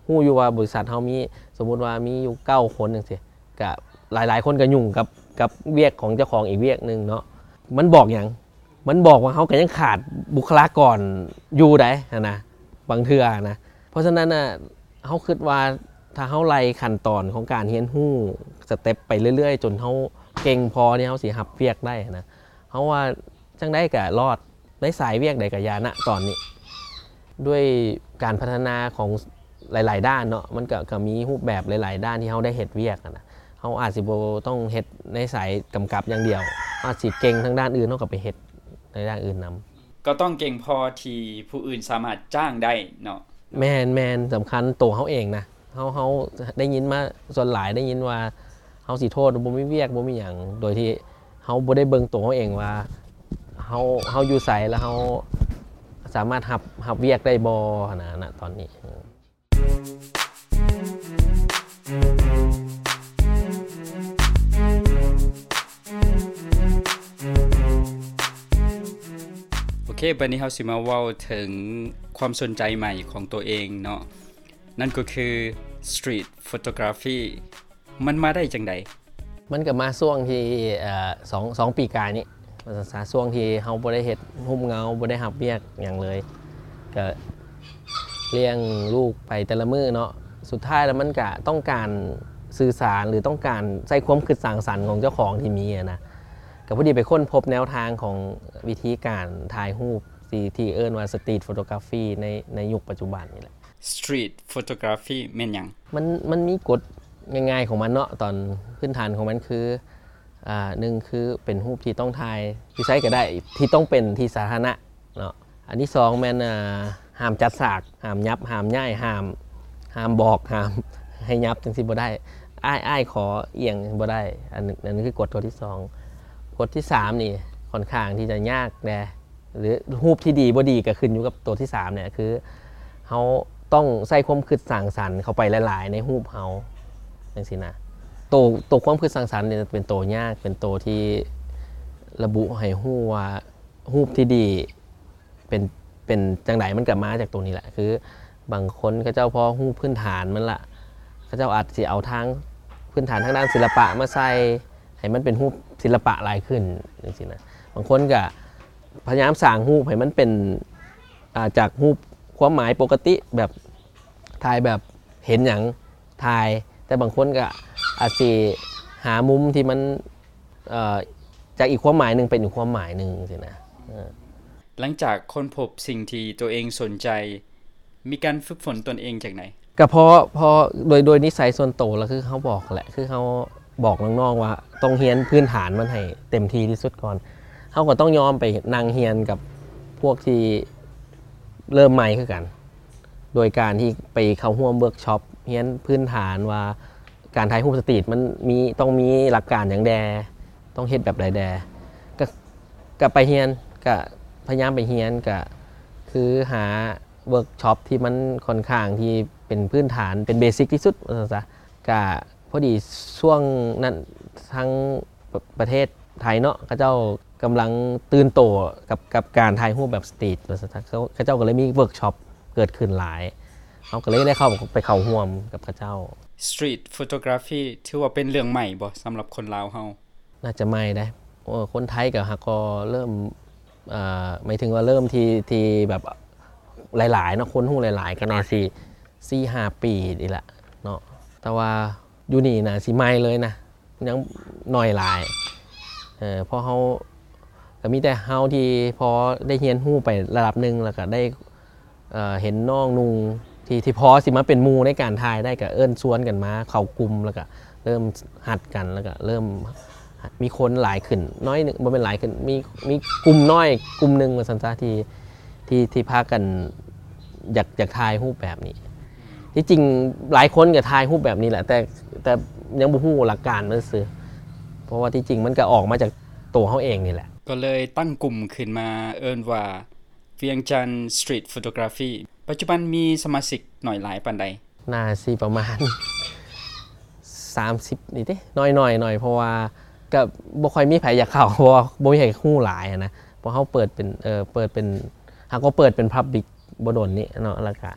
ຮູ້ຢູ່ວ່າບໍລິສັດເຮົາມີ ສົມມຸດວ່າມີຢູ່ເກົ້າຄົນຈັ່ງຊີ້ ກະຫຼາຍໆຄົນກະຫຍຸ້ງກັບ ກັບວຽກຂອງເຈົ້າຂອງອີກວຽກໜຶ່ງເນາະ. ມັນບອກຫຍັງ? ມັນບອກວ່າເຮົາກໍຍັງຂາດບຸກຄະລາກອນຢູ່ໃດ໋ຫັ້ນນະ ບາງເທື່ອນະ. ເພາະສະນັ້ນນະ ເຮົາຄິດວ່າຖ້າເຮົາໄລ່ຂັ້ນຕອນຂອງການຮຽນຮູ້ສະເຕັບໄປເລື້ອຍໆ ຈົນເຮົາເກັ່ງພໍທີ່ເຮົາຊິຮັບວຽກໄດ້ນະ ເຮົາວ່າຈັ່ງໃດກໍລອດ ໃນສາຍວຽກໃດກໍຢ່ານະຕອນນີ້. ດ້ວຍການພັດທະນາຂອງຫຼາຍໆດ້ານເນາະ ມັນກໍ ກໍມີຮູບແບບຫຼາຍໆດ້ານທີ່ເຮົາໄດ້ເຮັດວຽກຫັ້ນນະ. ເຮົາອາດຊິບໍ່ຕ້ອງເຮັດໃນສາຍກຳກັບຢ່າງດຽວ ເຮົາອາດຊິເກັ່ງທາງດ້ານອື່ນ ເຮົາກໍໄປເຮັດໃນດ້ານອື່ນນຳ. ກໍຕ້ອງເກັ່ງພໍທີ່ຜູ້ອື່ນສາມາດຈ້າງໄດ້ເນາະ. ແມ່ນໆ ສຳຄັນໂຕເຮົາເອງນະ. ເຮົາ ເຮົາໄດ້ຍິນມາ ສ່ວນຫຼາຍໄດ້ຍິນວ່າເຮົາຊິໂທດວ່າບໍ່ມີວຽກ ບໍ່ມີຫຍັງ ໂດຍທີ່ເຮົາບໍ່ໄດ້ເບິ່ງໂຕເຮົາເອງວ່າເຮົາ ເຮົາຢູ່ໃສ ແລ້ວເຮົາສາມາດຮັບ ຮັບວຽກໄດ້ບໍ່ຫັ້ນນະ ນະຕອນນີ້. ໂອເຄ ບັດນີ້ເຮົາຊິມາເວົ້າເຖິງຄວາມສົນໃຈໃໝ່ຂອງໂຕເອງເນາະ ນັ້ນກໍຄື Street Photography ມັນມາໄດ້ຈັ່ງໃດ? ມັນກໍມາຊ່ວງທີ່ ເອີ ສອງ ສອງປີກາຍນີ້ ວ່າຊັ້ນຊະ ຊ່ວງທີ່ເຮົາບໍ່ໄດ້ເຮັດຮູບເງົາ ບໍ່ໄດ້ຮັບວຽກຫຍັງເລີຍ ກໍລ້ຽງລູກໄປແຕ່ລະມື້ເນາະ. ສຸດທ້າຍແລ້ວມັນກະຕ້ອງການສື່ສານ ຫຼື ຕ້ອງການໃຊ້ຄວາມຄິດສ້າງສັນຂອງເຈົ້າຂອງທີ່ມີຫັ້ນນະ. ກໍພໍດີໄປຄົ້ນພົບແນວທາງຂອງວິທີການຖ່າຍຮູບທີ່ ທີ່ເອີ້ນວ່າ Street Photography ໃນ ໃນຍຸກປັດຈຸບັນນີ້ແຫຼະ. Street Photography ແມ່ນຫຍັງ? ມັນ ມັນມີກົດງ່າຍໆຂອງມັນເນາະ. ຕອນພື້ນຖານຂອງມັນຄື ອາ ໜຶ່ງ ຄືເປັນຮູບທີ່ຕ້ອງຖ່າຍຢູ່ໃສກໍໄດ້ ທີ່ຕ້ອງເປັນທີ່ສາທາລະນະເນາະ. ອັນທີສອງແມ່ນ ອາ ຫ້າມຈັດສາກ ຫ້າມຫຍັບ ຫ້າມຍ້າຍ ຫ້າມ ຫ້າມບອກ ຫ້າມໃຫ້ຫຍັບ ຈັ່ງຊີ້ບໍ່ໄດ້. ອ້າຍ ອ້າຍຂໍອຽງບໍ່ໄດ້. ອັນ ອັນນີ້ຄືກົດຕົວທີສອງ. ກົດທີສາມນີ້ຂ້ອນຂ້າງທີ່ຈະຍາກແດ່ ຫຼືຮູບທີ່ດີບໍ່ດີກໍຂຶ້ນຢູ່ກັບຕົວທີສາມນີ້ ຄືເຮົາຕ້ອງໃສ່ຄວາມຄິດສ້າງສັນເຂົ້າໄປຫຼາຍໆໃນຮູບເຮົາ ຈັ່ງຊີ້ນະ. ໂຕ ໂຕຄວາມຄິດສ້າງສັນນີ້ເປັນໂຕຍາກ ເປັນໂຕທີ່ລະບຸໃຫ້ຮູ້ວ່າຮູບທີ່ດີ ເປັນ ເປັນຈັ່ງໃດ ມັນກໍມາຈາກຕົວນີ້ແຫຼະ. ຄືບາງຄົນເຂົາເຈົ້າພໍຮູ້ພື້ນຖານມັນລະ ເຂົາເຈົ້າອາດຊິເອົາທາງພື້ນຖານທາງດ້ານສິລະປະມາໃສ່ ໃຫ້ມັນເປັນຮູບສິລະປະຫຼາຍຂຶ້ນ ຈັ່ງຊີ້ນະ. ບາງຄົນກໍພະຍາຍາມສ້າງຮູບໃຫ້ມັນເປັນ ອ່າ ຈາກຮູບຄວາມໝາຍປົກກະຕິ ແບບ ຖ່າຍແບບເຫັນຫຍັງຖ່າຍ, ແຕ່ບາງຄົນກໍອາດຊິຫາມຸມທີ່ມັນ ເອີ ຈາກອີກຄວາມໝາຍໜຶ່ງເປັນອີກຄວາມໝາຍໜຶ່ງຊີ້ນະ. ເອີ ຫຼັງຈາກຄົ້ນພົບສິ່ງທີ່ຕົວເອງສົນໃຈ ມີການຝຶກຝົນຕົນເອງຈັ່ງໃດ? ກໍເພາະ ເພາະໂດຍ ໂດຍນິໄສສ່ວນໂຕລະ ຄືເຮົາບອກແຫຼະ ຄືເຮົາບອກນ້ອງໆວ່າຕ້ອງຮຽນພື້ນຖານມັນໃຫ້ເຕັມທີ່ທີ່ສຸດກ່ອນ. ເຮົາກໍຕ້ອງຍອມໄປນັ່ງຮຽນກັບພວກທີ່ເລີ່ມໃໝ່ຄືກັນ ໂດຍການທີ່ໄປເຂົ້າຮ່ວມເວີກຊັອບ ຮຽນພື້ນຖານວ່າການຖ່າຍຮູບສະຕຣີດມັນມີ ຕ້ອງມີຫຼັກການຫຍັງແດ່ ຕ້ອງເຮັດແບບໃດແດ່ ກະ ກະໄປຮຽນ ກະພະຍາຍາມໄປຮຽນ ກະຄືຫາເວີກຊັອບທີ່ມັນຂ້ອນຂ້າງທີ່ເປັນພື້ນຖານ ເປັນເບສິກທີ່ສຸດວ່າຊັ້ນຊະ. ກະພໍດີຊ່ວງນັ້ນທາງປະ ປະເທດໄທເນາະ ເຂົາເຈົ້າກຳລັງຕື່ນໂຕກັບ ກັບການຖ່າຍຮູບແບບສະຕຣີດວ່າຊັ້ນຊະ ເຂົາ ເຂົາເຈົ້າກໍເລີຍມີເວີກຊັອບເກີດຂຶ້ນຫຼາຍ ເຮົາກໍເລີຍໄດ້ເຂົ້າ ໄປເຂົ້າຮ່ວມກັບເຂົາເຈົ້າ. Street photography ຖືວ່າເປັນເລື່ອງໃໝ່ບໍ່ສຳລັບຄົນລາວເຮົາ? ໜ້າຈະໃໝ່ເດ້. ໂອ້ ຄົນໄທກໍຫາກກໍເລີ່ມ ເອີ ໝາຍເຖິງວ່າເລີ່ມທີ່ ທີ່ແບບຫຼາຍໆເນາະ ຄົນຮູ້ຫຼາຍໆ ກໍໜ້າຊິສີ່ຫ້າປີນີ້ແຫຼະເນາະ ແຕ່ວ່າຢູ່ນີ້ໜ້າຊິໃໝ່ເລີຍນະ ຍັງໜ້ອຍຫຼາຍ. ເອີ ເພາະເຮົາ ກໍມີແຕ່ເຮົາທີ່ພໍໄດ້ຮຽນຮູ້ໄປລະດັບໜຶ່ງ ແລ້ວກໍໄດ້ ເອີ ເຫັນນ້ອງນຸ່ງທີ່ ທີ່ພໍຊິມາເປັນໝູ່ໃນການຖ່າຍໄດ້ ກໍເອີ້ນຊວນກັນມາເຂົ້າກຸ່ມ ແລ້ວກໍເລີ່ມຮັດກັນ ແລ້ວກໍເລີ່ມມີຄົນຫຼາຍຂຶ້ນໜ້ອຍໜຶ່ງ ບໍ່ແມ່ນຫຼາຍຂຶ້ນ ມີ ມີກຸ່ມນ້ອຍກຸ່ມໜຶ່ງວ່າຊັ້ນຊະ ທີ່ ທີ່ ທີ່ພາກັນຢາກ ຢາກຖ່າຍຮູບແບບນີ້. ທີ່ຈິງຫຼາຍຄົນກໍຖ່າຍຮູບແບບນີ້ແຫຼະ ແຕ່ ແຕ່ຍັງບໍ່ຮູ້ຫຼັກການມັນຊື່ ເພາະວ່າທີ່ຈິງມັນກໍອອກມາຈາກໂຕເຮົາເອງນີ້ແຫຼະ. ກໍເລີຍຕັ້ງກຸ່ມຂຶ້ນມາເອີ້ນວ່າ ວຽງຈັນ Street Photography ປັດຈຸບັນມີສະມາຊິກໜ້ອຍຫຼາຍປານໃດ? ໜ້າຊິປະມານສາມສິບນີ້ເດ້ ໜ້ອຍໆ ໜ້ອຍ ເພາະວ່າກໍບໍ່ຄ່ອຍມີໃຜຢາກເຂົ້າ ເພາະວ່າບໍ່ມີໃຜຮູ້ຫຼາຍນະ. ເພາະເຮົາເປີດເປັນ ເອີ ເປີດເປັນ ຫາກໍເປີດເປັນ Public ບໍ່ດົນນີ້ເນາະ ແລ້ວກະ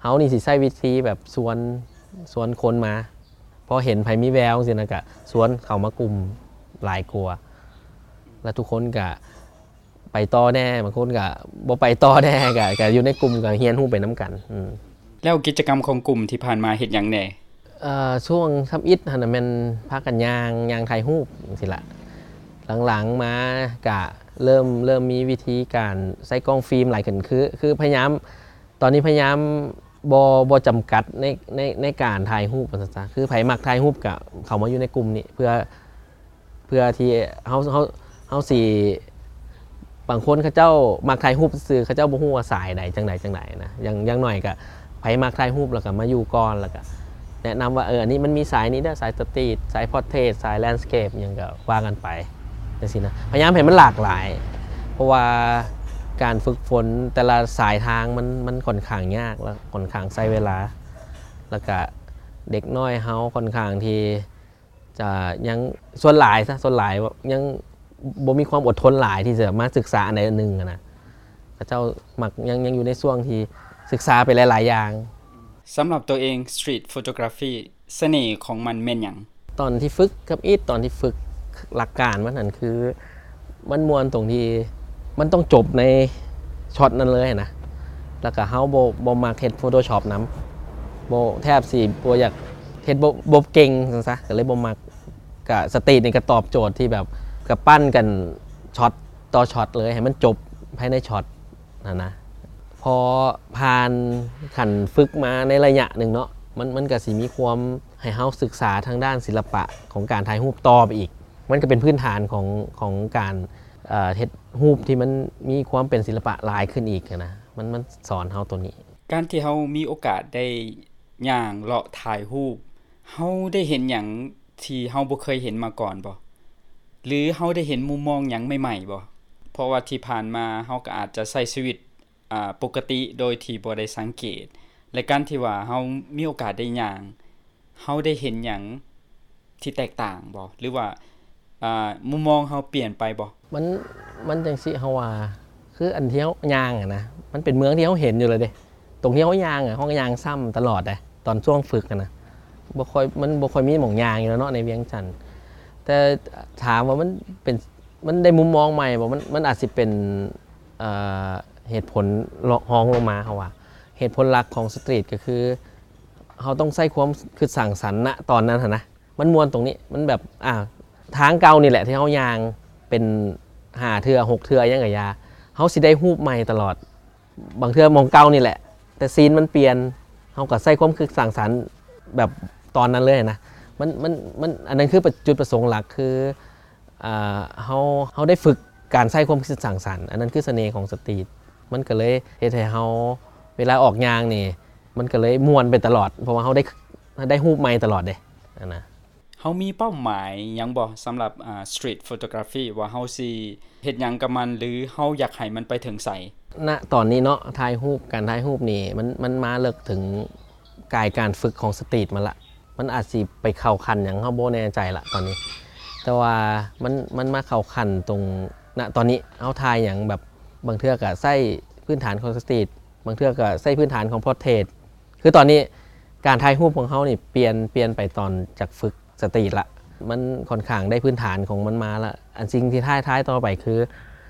ເຮົານີ້ຊິໃຊ້ວິທີແບບຊວນ ຊວນຄົນມາ ພໍເຫັນໃຜມີແວວຈັ່ງຊີ້ນະ ກະຊວນເຂົ້າມາກຸ່ມຫຼາຍກວ່າ ແລ້ວທຸກຄົນກະ ໄປຕໍ່ແດ່ ບາງຄົນກໍບໍ່ໄປຕໍ່ແດ່ ກໍ ກໍຢູ່ໃນກຸ່ມ ກໍຮຽນຮູ້ໄປນຳກັນ. ອືມ ແລ້ວກິດຈະກຳຂອງກຸ່ມທີ່ຜ່ານມາເຮັດຫຍັງແດ່? ເອີ ຊ່ວງທຳອິດຫັ້ນນະແມ່ນພາກັນຍ່າງ ຍ່າງຖ່າຍຮູບຈັ່ງຊີ້ລະ. ຫຼັງໆມາກະເລີ່ມ ເລີ່ມມີວິທີການໃຊ້ກ້ອງຟິມຫຼາຍຂຶ້ນ ຄື ຄືພະຍາຍາມ ຕອນນີ້ພະຍາຍາມບໍ່ ບໍ່ຈຳກັດໃນ ໃນ ໃນການຖ່າຍຮູບວ່າຊັ້ນຊະ ຄືໃຜມັກຖ່າຍຮູບກະເຂົ້າມາຢູ່ໃນກຸ່ມນີ້ ເພື່ອ ເພື່ອທີ່ເຮົາ ເຮົາ ເຮົາຊິ ບາງຄົນເຂົາເຈົ້າມັກຖ່າຍຮູບຊື່ໆ ເຂົາເຈົ້າບໍ່ຮູ້ວ່າສາຍໃດ ຈັ່ງໃດ ຈັ່ງໃດນະ. ຢ່າງ ຢ່າງໜ້ອຍກະໃຜມັກຖ່າຍຮູບ ແລ້ວກະມາຢູ່ກ່ອນ ແລ້ວກະແນະນຳວ່າ ເອີ ອັນນີ້ມັນມີສາຍນີ້ເດີ ສາຍສະຕຣີດ ສາຍພອດເທດ ສາຍແລນສະເກບ ຫຍັງກະວ່າກັນໄປ ຈັ່ງຊີ້ນະ. ພະຍາຍາມໃຫ້ມັນຫຼາກຫຼາຍ ເພາະວ່າການຝຶກຝົນແຕ່ລະສາຍທາງມັນ ມັນຂ້ອນຂ້າງຍາກ ແລ້ວຂ້ອນຂ້າງໃຊ້ເວລາ ແລ້ວກະເດັກນ້ອຍເຮົາຂ້ອນຂ້າງທີ່ ຈະຍັງ ສ່ວນຫຼາຍຊະ ສ່ວນຫຼາຍຍັງບໍ່ມີຄວາມອົດທົນຫຼາຍທີ່ຈະມາສຶກສາອັນໃດອັນໜຶ່ງນະ. ເຂົາເຈົ້າມັກຍັງ ຍັງຢູ່ໃນຊ່ວງທີ່ສຶກສາໄປຫຼາຍໆຢ່າງ. ສຳລັບຕົວເອງ Street Photography ສະເໜ່ຂອງມັນແມ່ນຫຍັງ? ຕອນທີ່ຝຶກທຳອິດ ຕອນທີ່ຝຶກຫຼັກການມັນຫັ້ນ ຄືມັນມ່ວນຕົງທີ່ມັນຕ້ອງຈົບໃນຊັອດນັ້ນເລີຍນະ. ແລ້ວກະເຮົາບໍ່ ບໍ່ມັກເຮັດ Photoshop ນຳ ບໍ່ ແທບຊິບໍ່ຢາກ ເຮັດບໍ່ ບໍ່ເກັ່ງຊັ້ນຊະ ກໍເລີຍບໍ່ມັກ. ກະສະຕຣີດນີ້ກະຕອບໂຈດທີ່ແບບກະປັ້ນກັນຊັອດຕໍ່ຊັອດເລີຍ ໃຫ້ມັນຈົບພາຍໃນຊັອດຫັ້ນນະ. ພໍຜ່ານຂັ້ນຝຶກມາໃນໄລຍະໜຶ່ງເນາະ ມັນ ມັນກະຊິມີຄວາມໃຫ້ເຮົາສຶກສາທາງດ້ານສິລະປະຂອງການຖ່າຍຮູບຕໍ່ໄປອີກ. ມັນກະເປັນພື້ນຖານຂອງ ຂອງການ ເອີ ເຮັດຮູບທີ່ມັນມີຄວາມເປັນສິລະປະຫຼາຍຂຶ້ນອີກຫັ້ນນະ ມັນ ມັນສອນເຮົາໂຕນີ້. ການທີ່ເຮົາມີໂອກາດໄດ້ຍ່າງເລາະຖ່າຍຮູບ ເຮົາໄດ້ເຫັນຫຍັງທີ່ເຮົາບໍ່ເຄີຍເຫັນມາກ່ອນບໍ່? ຫຼືເຮົາໄດ້ເຫັນມຸມມອງຫຍັງໃໝ່ໆບໍ່? ເພາະວ່າທີ່ຜ່ານມາເຮົາກໍອາດຈະໃຊ້ຊີວິດ ອ່າ ປົກກະຕິໂດຍທີ່ບໍ່ໄດ້ສັງເກດ ແລະ ການທີ່ວ່າເຮົາມີໂອກາດໄດ້ຍ່າງ ເຮົາໄດ້ເຫັນຫຍັງທີ່ແຕກຕ່າງບໍ່? ຫຼືວ່າ ອ່າ ມຸມມອງເຮົາປ່ຽນໄປບໍ່? ມັນ ມັນຈັ່ງຊີ້ ເຮົາວ່າ ຄືອັນທີ່ເຮົາຍ່າງຫັ້ນນະ ມັນເປັນເມືອງທີ່ເຮົາເຫັນຢູ່ແລ້ວເດ້. ຕົງທີ່ເຮົາຍ່າງອະ ເຮົາກໍຍ່າງຊ້ຳຕະຫຼອດເດ້ ຕອນຊ່ວງຝຶກຫັ້ນນະ ບໍ່ຄ່ອຍ ມັນບໍ່ຄ່ອຍມີໝ່ອງຍ່າງຢູ່ແລ້ວເນາະ ໃນວຽງຈັນ. ແຕ່ຖາມວ່າມັນເປັນ ມັນໄດ້ມຸມມອງໃໝ່ບໍ່? ມັນ ມັນອາດຊິເປັນ ເອີ ເຫດຜົນລະ ຮອງລົງມາ ເຮົາວ່າ ເຫດຜົນຫຼັກຂອງສະຕຣີດກໍຄື ເຮົາຕ້ອງໃຊ້ຄວາມຄິດສ້າງສັນນະຕອນນັ້ນຫັ້ນນະ ມັນມ່ວນຕົງນີ້ ມັນແບບ ອ່າ ທາງເກົ່ານີ້ແຫຼະທີ່ເຮົາຍ່າງເປັນຫ້າເທື່ອ ຫົກເທື່ອ ຫຍັງກະຢ່າ ເຮົາຊິໄດ້ຮູບໃໝ່ຕະຫຼອດ. ບາງເທື່ອໝ່ອງເກົ່ານີ້ແຫຼະ ແຕ່ຊີນມັນປ່ຽນ ເຮົາກໍໃຊ້ຄວາມຄິດສ້າງສັນແບບຕອນນັ້ນເລີຍນະ. ມັນ ມັນ ມັນ ອັນນັ້ນຄືປະ ຈຸດປະສົງຫຼັກ ຄື ອ່າ ເຮົາ ເຮົາໄດ້ຝຶກການໃຊ້ຄວາມຄິດສ້າງສັນ ອັນນັ້ນຄືສະເໜ່ຂອງສະຕຣີດ. ມັນກໍເລີຍເຮັດໃຫ້ເຮົາເວລາອອກຍ່າງນີ້ ມັນກໍເລີຍມ່ວນໄປຕະຫຼອດ ເພາະວ່າເຮົາໄດ້ ໄດ້ຮູບໃໝ່ຕະຫຼອດເດ້ ຫັ້ນນະ. ເຮົາມີເປົ້າໝາຍຫຍັງບໍ່ ສຳລັບ ອ່າ ສະຕຣີດໂຟໂຕກຣາຟີ່ ວ່າເຮົາຊິເຮັດຫຍັງກັບມັນ ຫຼືເຮົາຢາກໃຫ້ມັນໄປເຖິງໃສ? ນະຕອນນີ້ເນາະ ຖ່າຍຮູບ ການຖ່າຍຮູບນີ້ ມັນ ມັນມາເລິກເຖິງກາຍການຝຶກຂອງສະຕຣີດມາລະ. ມັນອາດຊິໄປເຂົ້າຂັ້ນຫຍັງ ເຮົາບໍ່ແນ່ໃຈລະຕອນນີ້ ແຕ່ວ່າມັນ ມັນມາເຂົ້າຂັ້ນຕົງ ນະຕອນນີ້ເຮົາຖ່າຍຫຍັງແບບ ບາງເທື່ອກໍໃຊ້ພື້ນຖານຂອງສະຕຣີດ ບາງເທື່ອກໍໃຊ້ພື້ນຖານຂອງພອດເທດ. ຄືຕອນນີ້ການຖ່າຍຮູບຂອງເຮົານີ້ປ່ຽນ ປ່ຽນໄປຕອນຈາກຝຶກສະຕຣີດລະ ມັນຂ້ອນຂ້າງໄດ້ພື້ນຖານຂອງມັນມາລະ. ອັນສິ່ງທີ່ທ້າຍ ທ້າຍຕໍ່ໄປຄື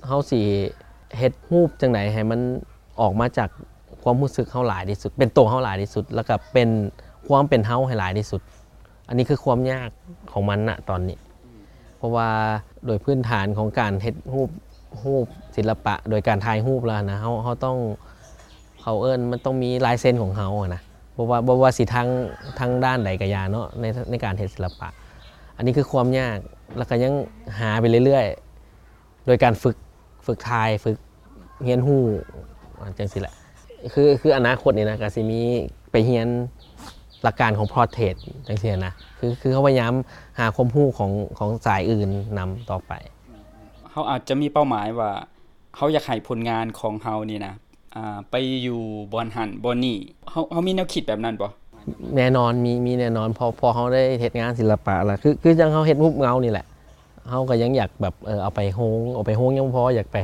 ເຮົາຊິເຮັດຮູບຈັ່ງໃດໃຫ້ມັນອອກມາຈາກຄວາມຮູ້ສຶກເຮົາຫຼາຍທີ່ສຸດ ເປັນໂຕເຮົາຫຼາຍທີ່ສຸດ ແລ້ວກໍເປັນຄວາມເປັນເຮົາໃຫ້ຫຼາຍທີ່ສຸດ. ອັນນີ້ຄືຄວາມຍາກຂອງມັນນະຕອນນີ້ ເພາະວ່າໂດຍພື້ນຖານຂອງການເຮັດຮູບ ຮູບສິລະປະໂດຍການຖ່າຍຮູບແລ້ວນະ ເຮົາ ເຮົາຕ້ອງ ເຂົາເອີ້ນ ມັນຕ້ອງມີລາຍເຊັນຂອງເຮົາຫັ້ນນະ ບໍ່ວ່າ ບໍ່ວ່າຊິທາງ ທາງດ້ານໃດກະຢ່າເນາະ ໃນ ໃນການເຮັດສິລະປະ. ອັນນີ້ຄືຄວາມຍາກ ແລ້ວກະຍັງຫາໄປເລື້ອຍໆ ໂດຍການຝຶກ ຝຶກຖ່າຍ ຝຶກຮຽນຮູ້ ຈັ່ງຊີ້ແຫຼະ. ຄື ຄືອະນາຄົດນີ້ນະ ກະຊິມີໄປຮຽນຫຼັກການຂອງພອດເທດຈັ່ງຊີ້ນະ ຄື ຄືເຮົາພະຍາຍາມຫາຄວາມຮູ້ຂອງ ຂອງສາຍອື່ນນຳຕໍ່ໄປ. ເຮົາອາດຈະມີເປົ້າໝາຍວ່າ ເຮົາຢາກໃຫ້ຜົນງານຂອງເຮົານີ້ນະ ອ່າ ໄປຢູ່ບ່ອນຫັ້ນບ່ອນນີ້ ເຮົາ ເຮົາມີແນວຄິດແບບນັ້ນບໍ່? ແນ່ນອນ ມີ ມີແນ່ນອນ ເພາະ ເພາະເຮົາໄດ້ເຮັດງານສິລະປະລະ ຄື ຄືຈັ່ງເຮົາເຮັດຮູບເງົານີ້ແຫຼະ ເຮົາກໍຍັງຢາກແບບ ເອີ ເອົາໄປໂຮງ ເອົາໄປໂຮງຍັງບໍ່ພໍ ຢາກໄປ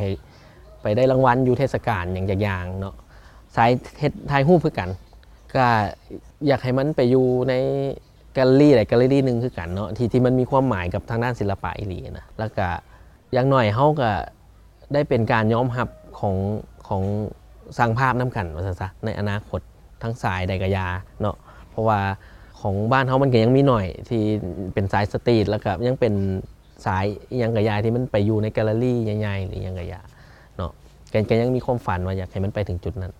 ໄປໄດ້ລາງວັນຢູ່ເທດສະການຫຍັງຈັກຢ່າງເນາະ. ສາຍເຮັດຖ່າຍຮູບຄືກັນ ກະຢາກໃຫ້ມັນໄປຢູ່ໃນແກລເລີຣີໃດແກລເລີຣີໜຶ່ງຄືກັນເນາະ ທີ່ ທີ່ມັນມີຄວາມໝາຍກັບທາງດ້ານສິລະປະອີ່ຫຼີນະ ແລ້ວກະ ຢ່າງໜ້ອຍເຮົາກະໄດ້ເປັນການຍອມຮັບຂອງ ຂອງຊ່າງພາບນຳກັນວ່າຊັ້ນຊະ ໃນອະນາຄົດ ທັງສາຍໃດກະຢ່າເນາະ ເພາະວ່າຂອງບ້ານເຮົາມັນກະຍັງມີໜ້ອຍທີ່ເປັນສາຍສະຕຣີດ ແລ້ວກະຍັງເປັນສາຍອີ່ຫຍັງກະຢ່າທີ່ມັນໄປຢູ່ໃນແກລເລີຣີໃຫຍ່ໆ ຫຼືຫຍັງກະຢ່າເນາະ ກະ ກະຍັງມີຄວາມຝັນວ່າຢາກໃຫ້ມັນໄປເຖິງຈຸດນັ້ນ.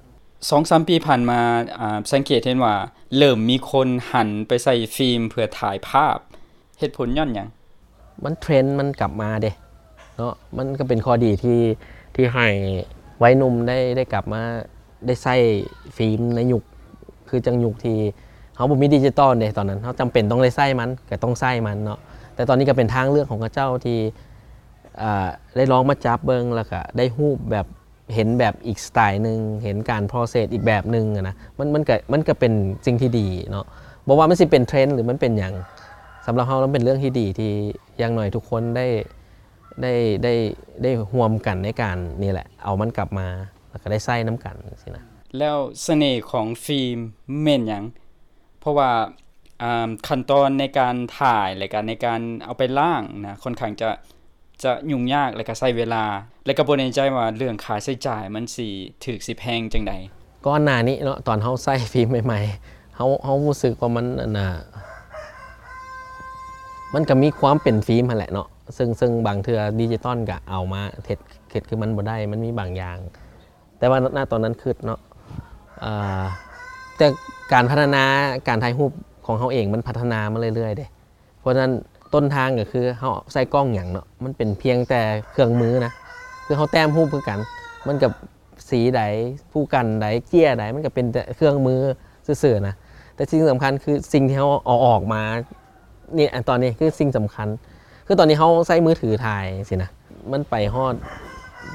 ສອງສາມປີຜ່ານມາ ອ່າ ສັງເກດເຫັນວ່າເລີ່ມມີຄົນຫັນໄປໃຊ້ຟີມເພື່ອຖ່າຍພາບ ເຫດຜົນຍ້ອນຫຍັງ? ມັນເທຣນມັນກັບມາເດ້ເນາະ ມັນກໍເປັນຂໍ້ດີທີ່ ທີ່ໃຫ້ໄວໜຸ່ມໄດ້ ໄດ້ກັບມາ ໄດ້ໃຊ້ຟີມໃນຍຸກ ຄືຈັ່ງຍຸກທີ່ເຮົາບໍ່ມີດິຈິຕອນເດ້ ຕອນນັ້ນເຮົາຈຳເປັນຕ້ອງໄດ້ໃຊ້ມັນ ກໍຕ້ອງໃຊ້ມັນເນາະ ແຕ່ຕອນນີ້ກໍເປັນທາງເລືອກຂອງເຂົາເຈົ້າທີ່ ອ່າ ໄດ້ລອງມາຈັບເບິ່ງ ແລ້ວກໍໄດ້ຮູບແບບ ເຫັນແບບອີກສະໄຕໜຶ່ງ ເຫັນການໂປຣເຊສອີກແບບໜຶ່ງຫັ້ນນະ ມັນ ມັນກະ ມັນກະເປັນສິ່ງທີ່ດີເນາະ ບໍ່ວ່າມັນຊິເປັນເທຣນ ຫຼືມັນເປັນຫຍັງ ສຳລັບເຮົາມັນເປັນເລື່ອງທີ່ດີ ທີ່ຢ່າງໜ້ອຍທຸກຄົນໄດ້ ໄດ້ ໄດ້ ໄດ້ຮ່ວມກັນໃນການນີ້ແຫຼະ ເອົາມັນກັບມາ ແລ້ວກະໄດ້ໃຊ້ນຳກັນຊີ້ນະ. ແລ້ວສະເໜ່ຂອງຟີມແມ່ນຫຍັງ? ເພາະວ່າ ອ່າ ຂັ້ນຕອນໃນການຖ່າຍ ແລະກະໃນການເອົາໄປລ້າງນະ ຂ້ອນຂ້າງຈະ ຈະຫຍຸ້ງຍາກ ແລະກະໃຊ້ເວລາ ແລະກະບໍ່ແນ່ໃຈວ່າເລື່ອງຄ່າໃຊ້ຈ່າຍມັນຊິຖືກຊິແພງຈັ່ງໃດ. ກ່ອນໜ້ານີ້ເນາະ ຕອນເຮົາໃຊ້ຟີມໃໝ່ໆ ເຮົາ ເຮົາຮູ້ສຶກວ່າມັນ ອັນນ່າ ມັນກະມີຄວາມເປັນຟີມຫັ້ນແຫຼະເນາະ ເຊິ່ງ ເຊິ່ງບາງເທື່ອດິຈິຕອນກະເອົາມາເຮັດ ເຮັດຄືມັນບໍ່ໄດ້ ມັນມີບາງຢ່າງ ແຕ່ວ່າ ນະ ຕອນນັ້ນຄິດເນາະ ເອີ ແຕ່ການພັດທະນາການຖ່າຍຮູບຂອງເຮົາເອງ ມັນພັດທະນາມາເລື້ອຍໆເດ້ ເພາະສະນັ້ນຕົ້ນທາງກໍຄືເຮົາໃຊ້ກ້ອງຫຍັງເນາະ ມັນເປັນພຽງແຕ່ເຄື່ອງມືນະ ຄືເຮົາແຕ້ມຮູບຄືກັນ ມັນກໍສີໃດ ຜູ້ກັນໃດ ເຈ້ຍໃດ ມັນກໍເປັນແຕ່ເຄື່ອງມືຊື່ໆນະ ແຕ່ສິ່ງສຳຄັນຄືສິ່ງທີ່ເຮົາເອົາອອກມານີ້ ອັນຕອນນີ້ຄືສິ່ງສຳຄັນ ຄືຕອນນີ້ເຮົາໃຊ້ມືຖືຖ່າຍຊີ້ນະ ມັນໄປຮອດ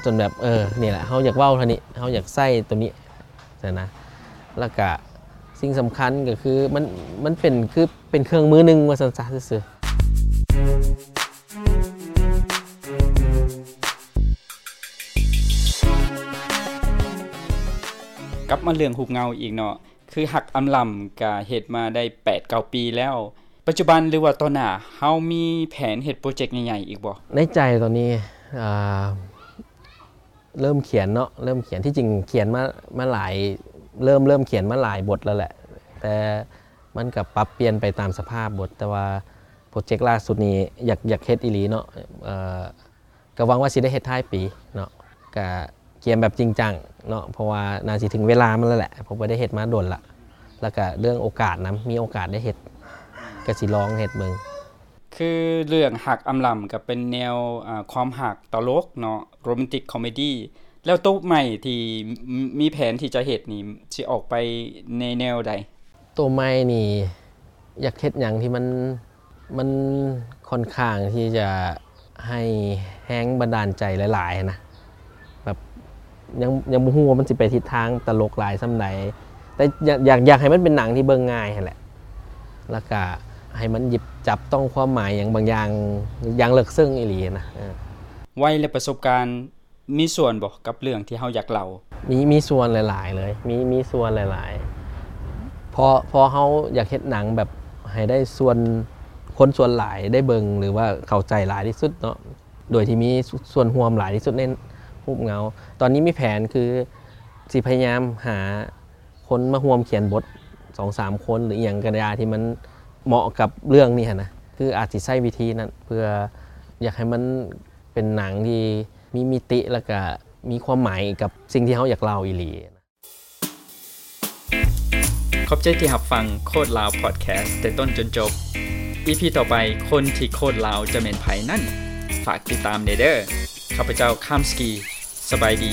ຈົນແບບ ເອີ ນີ້ແຫຼະ ເຮົາຢາກເວົ້າເທົ່ານີ້ ເຮົາຢາກໃຊ້ໂຕນີ້ຊີ້ນະ ແລ້ວກະສິ່ງສຳຄັນກໍຄືມັນ ມັນເປັນ ຄືເປັນເຄື່ອງມືໜຶ່ງວ່າຊັ້ນຊະຊື່ໆ. ກັບມາເລື່ອງຮູບເງົາອີກເນາະ ຄືຮັກອຳລຳກະເຮັດມາໄດ້ແປດເກົ້າປີແລ້ວ ປັດຈຸບັນ ຫຼືວ່າຕໍ່ໜ້າ ເຮົາມີແຜນເຮັດໂປຣເຈັກໃຫຍ່ໆອີກບໍ່? ໃນໃຈຕອນນີ້ ເອີ ເລີ່ມຂຽນເນາະ ເລີ່ມຂຽນ ທີ່ຈິງຂຽນມາ ມາຫຼາຍ ເລີ່ມ ເລີ່ມຂຽນມາຫຼາຍບົດແລ້ວແຫຼະ ແຕ່ມັນກໍປັບປ່ຽນໄປຕາມສະພາບບົດ ແຕ່ວ່າໂປຣເຈັກລ່າສຸດນີ້ຢາກ ຢາກເຮັດອີ່ຫຼີເນາະ ເອີ ກໍຫວັງວ່າຊິໄດ້ເຮັດທ້າຍປີເນາະ ກໍກຽມແບບຈິງຈັງເນາະ ເພາະວ່າໜ້າຊິເຖິງເວລາມັນແລ້ວແຫຼະ ເພາະບໍ່ໄດ້ເຮັດມາດົນລະ ແລ້ວກໍເລື່ອງໂອກາດນຳ ມີໂອກາດໄດ້ເຮັດ ກໍຊິລອງເຮັດເບິ່ງ. ຄືເລື່ອງຮັກອຳລຳກໍເປັນແນວ ອາ ຄວາມຮັກຕະຫຼົກເນາະ ໂຣແມນຕິກຄອມເມດີ້ ແລ້ວໂຕໃໝ່ທີ່ ມີແຜນທີ່ຈະເຮັດນີ້ ຊິອອກໄປໃນແນວໃດ? ໂຕໃໝ່ນີ້ ຢາກເຮັດຫຍັງທີ່ມັນ ມັນຂ້ອນຂ້າງທີ່ຈະໃຫ້ແຮງບັນດານໃຈຫຼາຍໆນະ ແບບ ຍັງ ຍັງບໍ່ຮູ້ວ່າມັນຊິໄປທິດທາງຕະຫຼົກຫຼາຍສ່ຳໃດ ແຕ່ຢາກ ຢາກ ຢາກໃຫ້ມັນເປັນໜັງທີ່ເບິ່ງງ່າຍຫັ້ນແຫຼະ ແລ້ວກະໃຫ້ມັນຫຍິບຈັບຕ້ອງຄວາມໝາຍຫຍັງບາງຢ່າງ ຢ່າງເລິກເຊິ່ງອີ່ຫຼີນະ ເອີ. ໄວ ແລະ ປະສົບການ ມີສ່ວນບໍ່ກັບເລື່ອງທີ່ເຮົາຢາກເລົ່າ? ມີ ມີສ່ວນຫຼາຍໆເລີຍ ມີ ມີສ່ວນຫຼາຍໆ ເພາະ ເພາະເຮົາຢາກເຮັດໜັງແບບໃຫ້ໄດ້ສ່ວນ ຄົນສ່ວນຫຼາຍໄດ້ເບິ່ງ ຫຼືວ່າເຂົ້າໃຈຫຼາຍທີ່ສຸດເນາະ ໂດຍທີ່ມີສ່ວນຮ່ວມຫຼາຍທີ່ສຸດໃນຮູບເງົາ. ຕອນນີ້ມີແຜນຄືຊິພະຍາຍາມຫາຄົນມາຮ່ວມຂຽນບົດສອງສາມຄົນ ຫຼືອີ່ຫຍັງກໍໄດ້ທີ່ມັນເໝາະກັບເລື່ອງນີ້ຫັ້ນນະ ຄືອາດຊິໃຊ້ວິທີນັ້ນ ເພື່ອຢາກໃຫ້ມັນເປັນໜັງທີ່ ມີມິຕິ ແລ້ວກະມີຄວາມໝາຍກັບສິ່ງທີ່ເຮົາຢາກເລົ່າອີ່ຫຼີ. ຂອບໃຈທີ່ຮັບຟັງໂຄດລາວພອດແຄສແຕ່ຕົ້ນຈົນຈົບ. ອີພີຕໍ່ໄປ ຄົນທີ່ໂຄດລາວຈະແມ່ນໃຜນັ້ນ ຝາກຕິດຕາມແດ່ເດີ້. ຂ້າພະເຈົ້າ ຄາມສະກີ ສະບາຍດີ.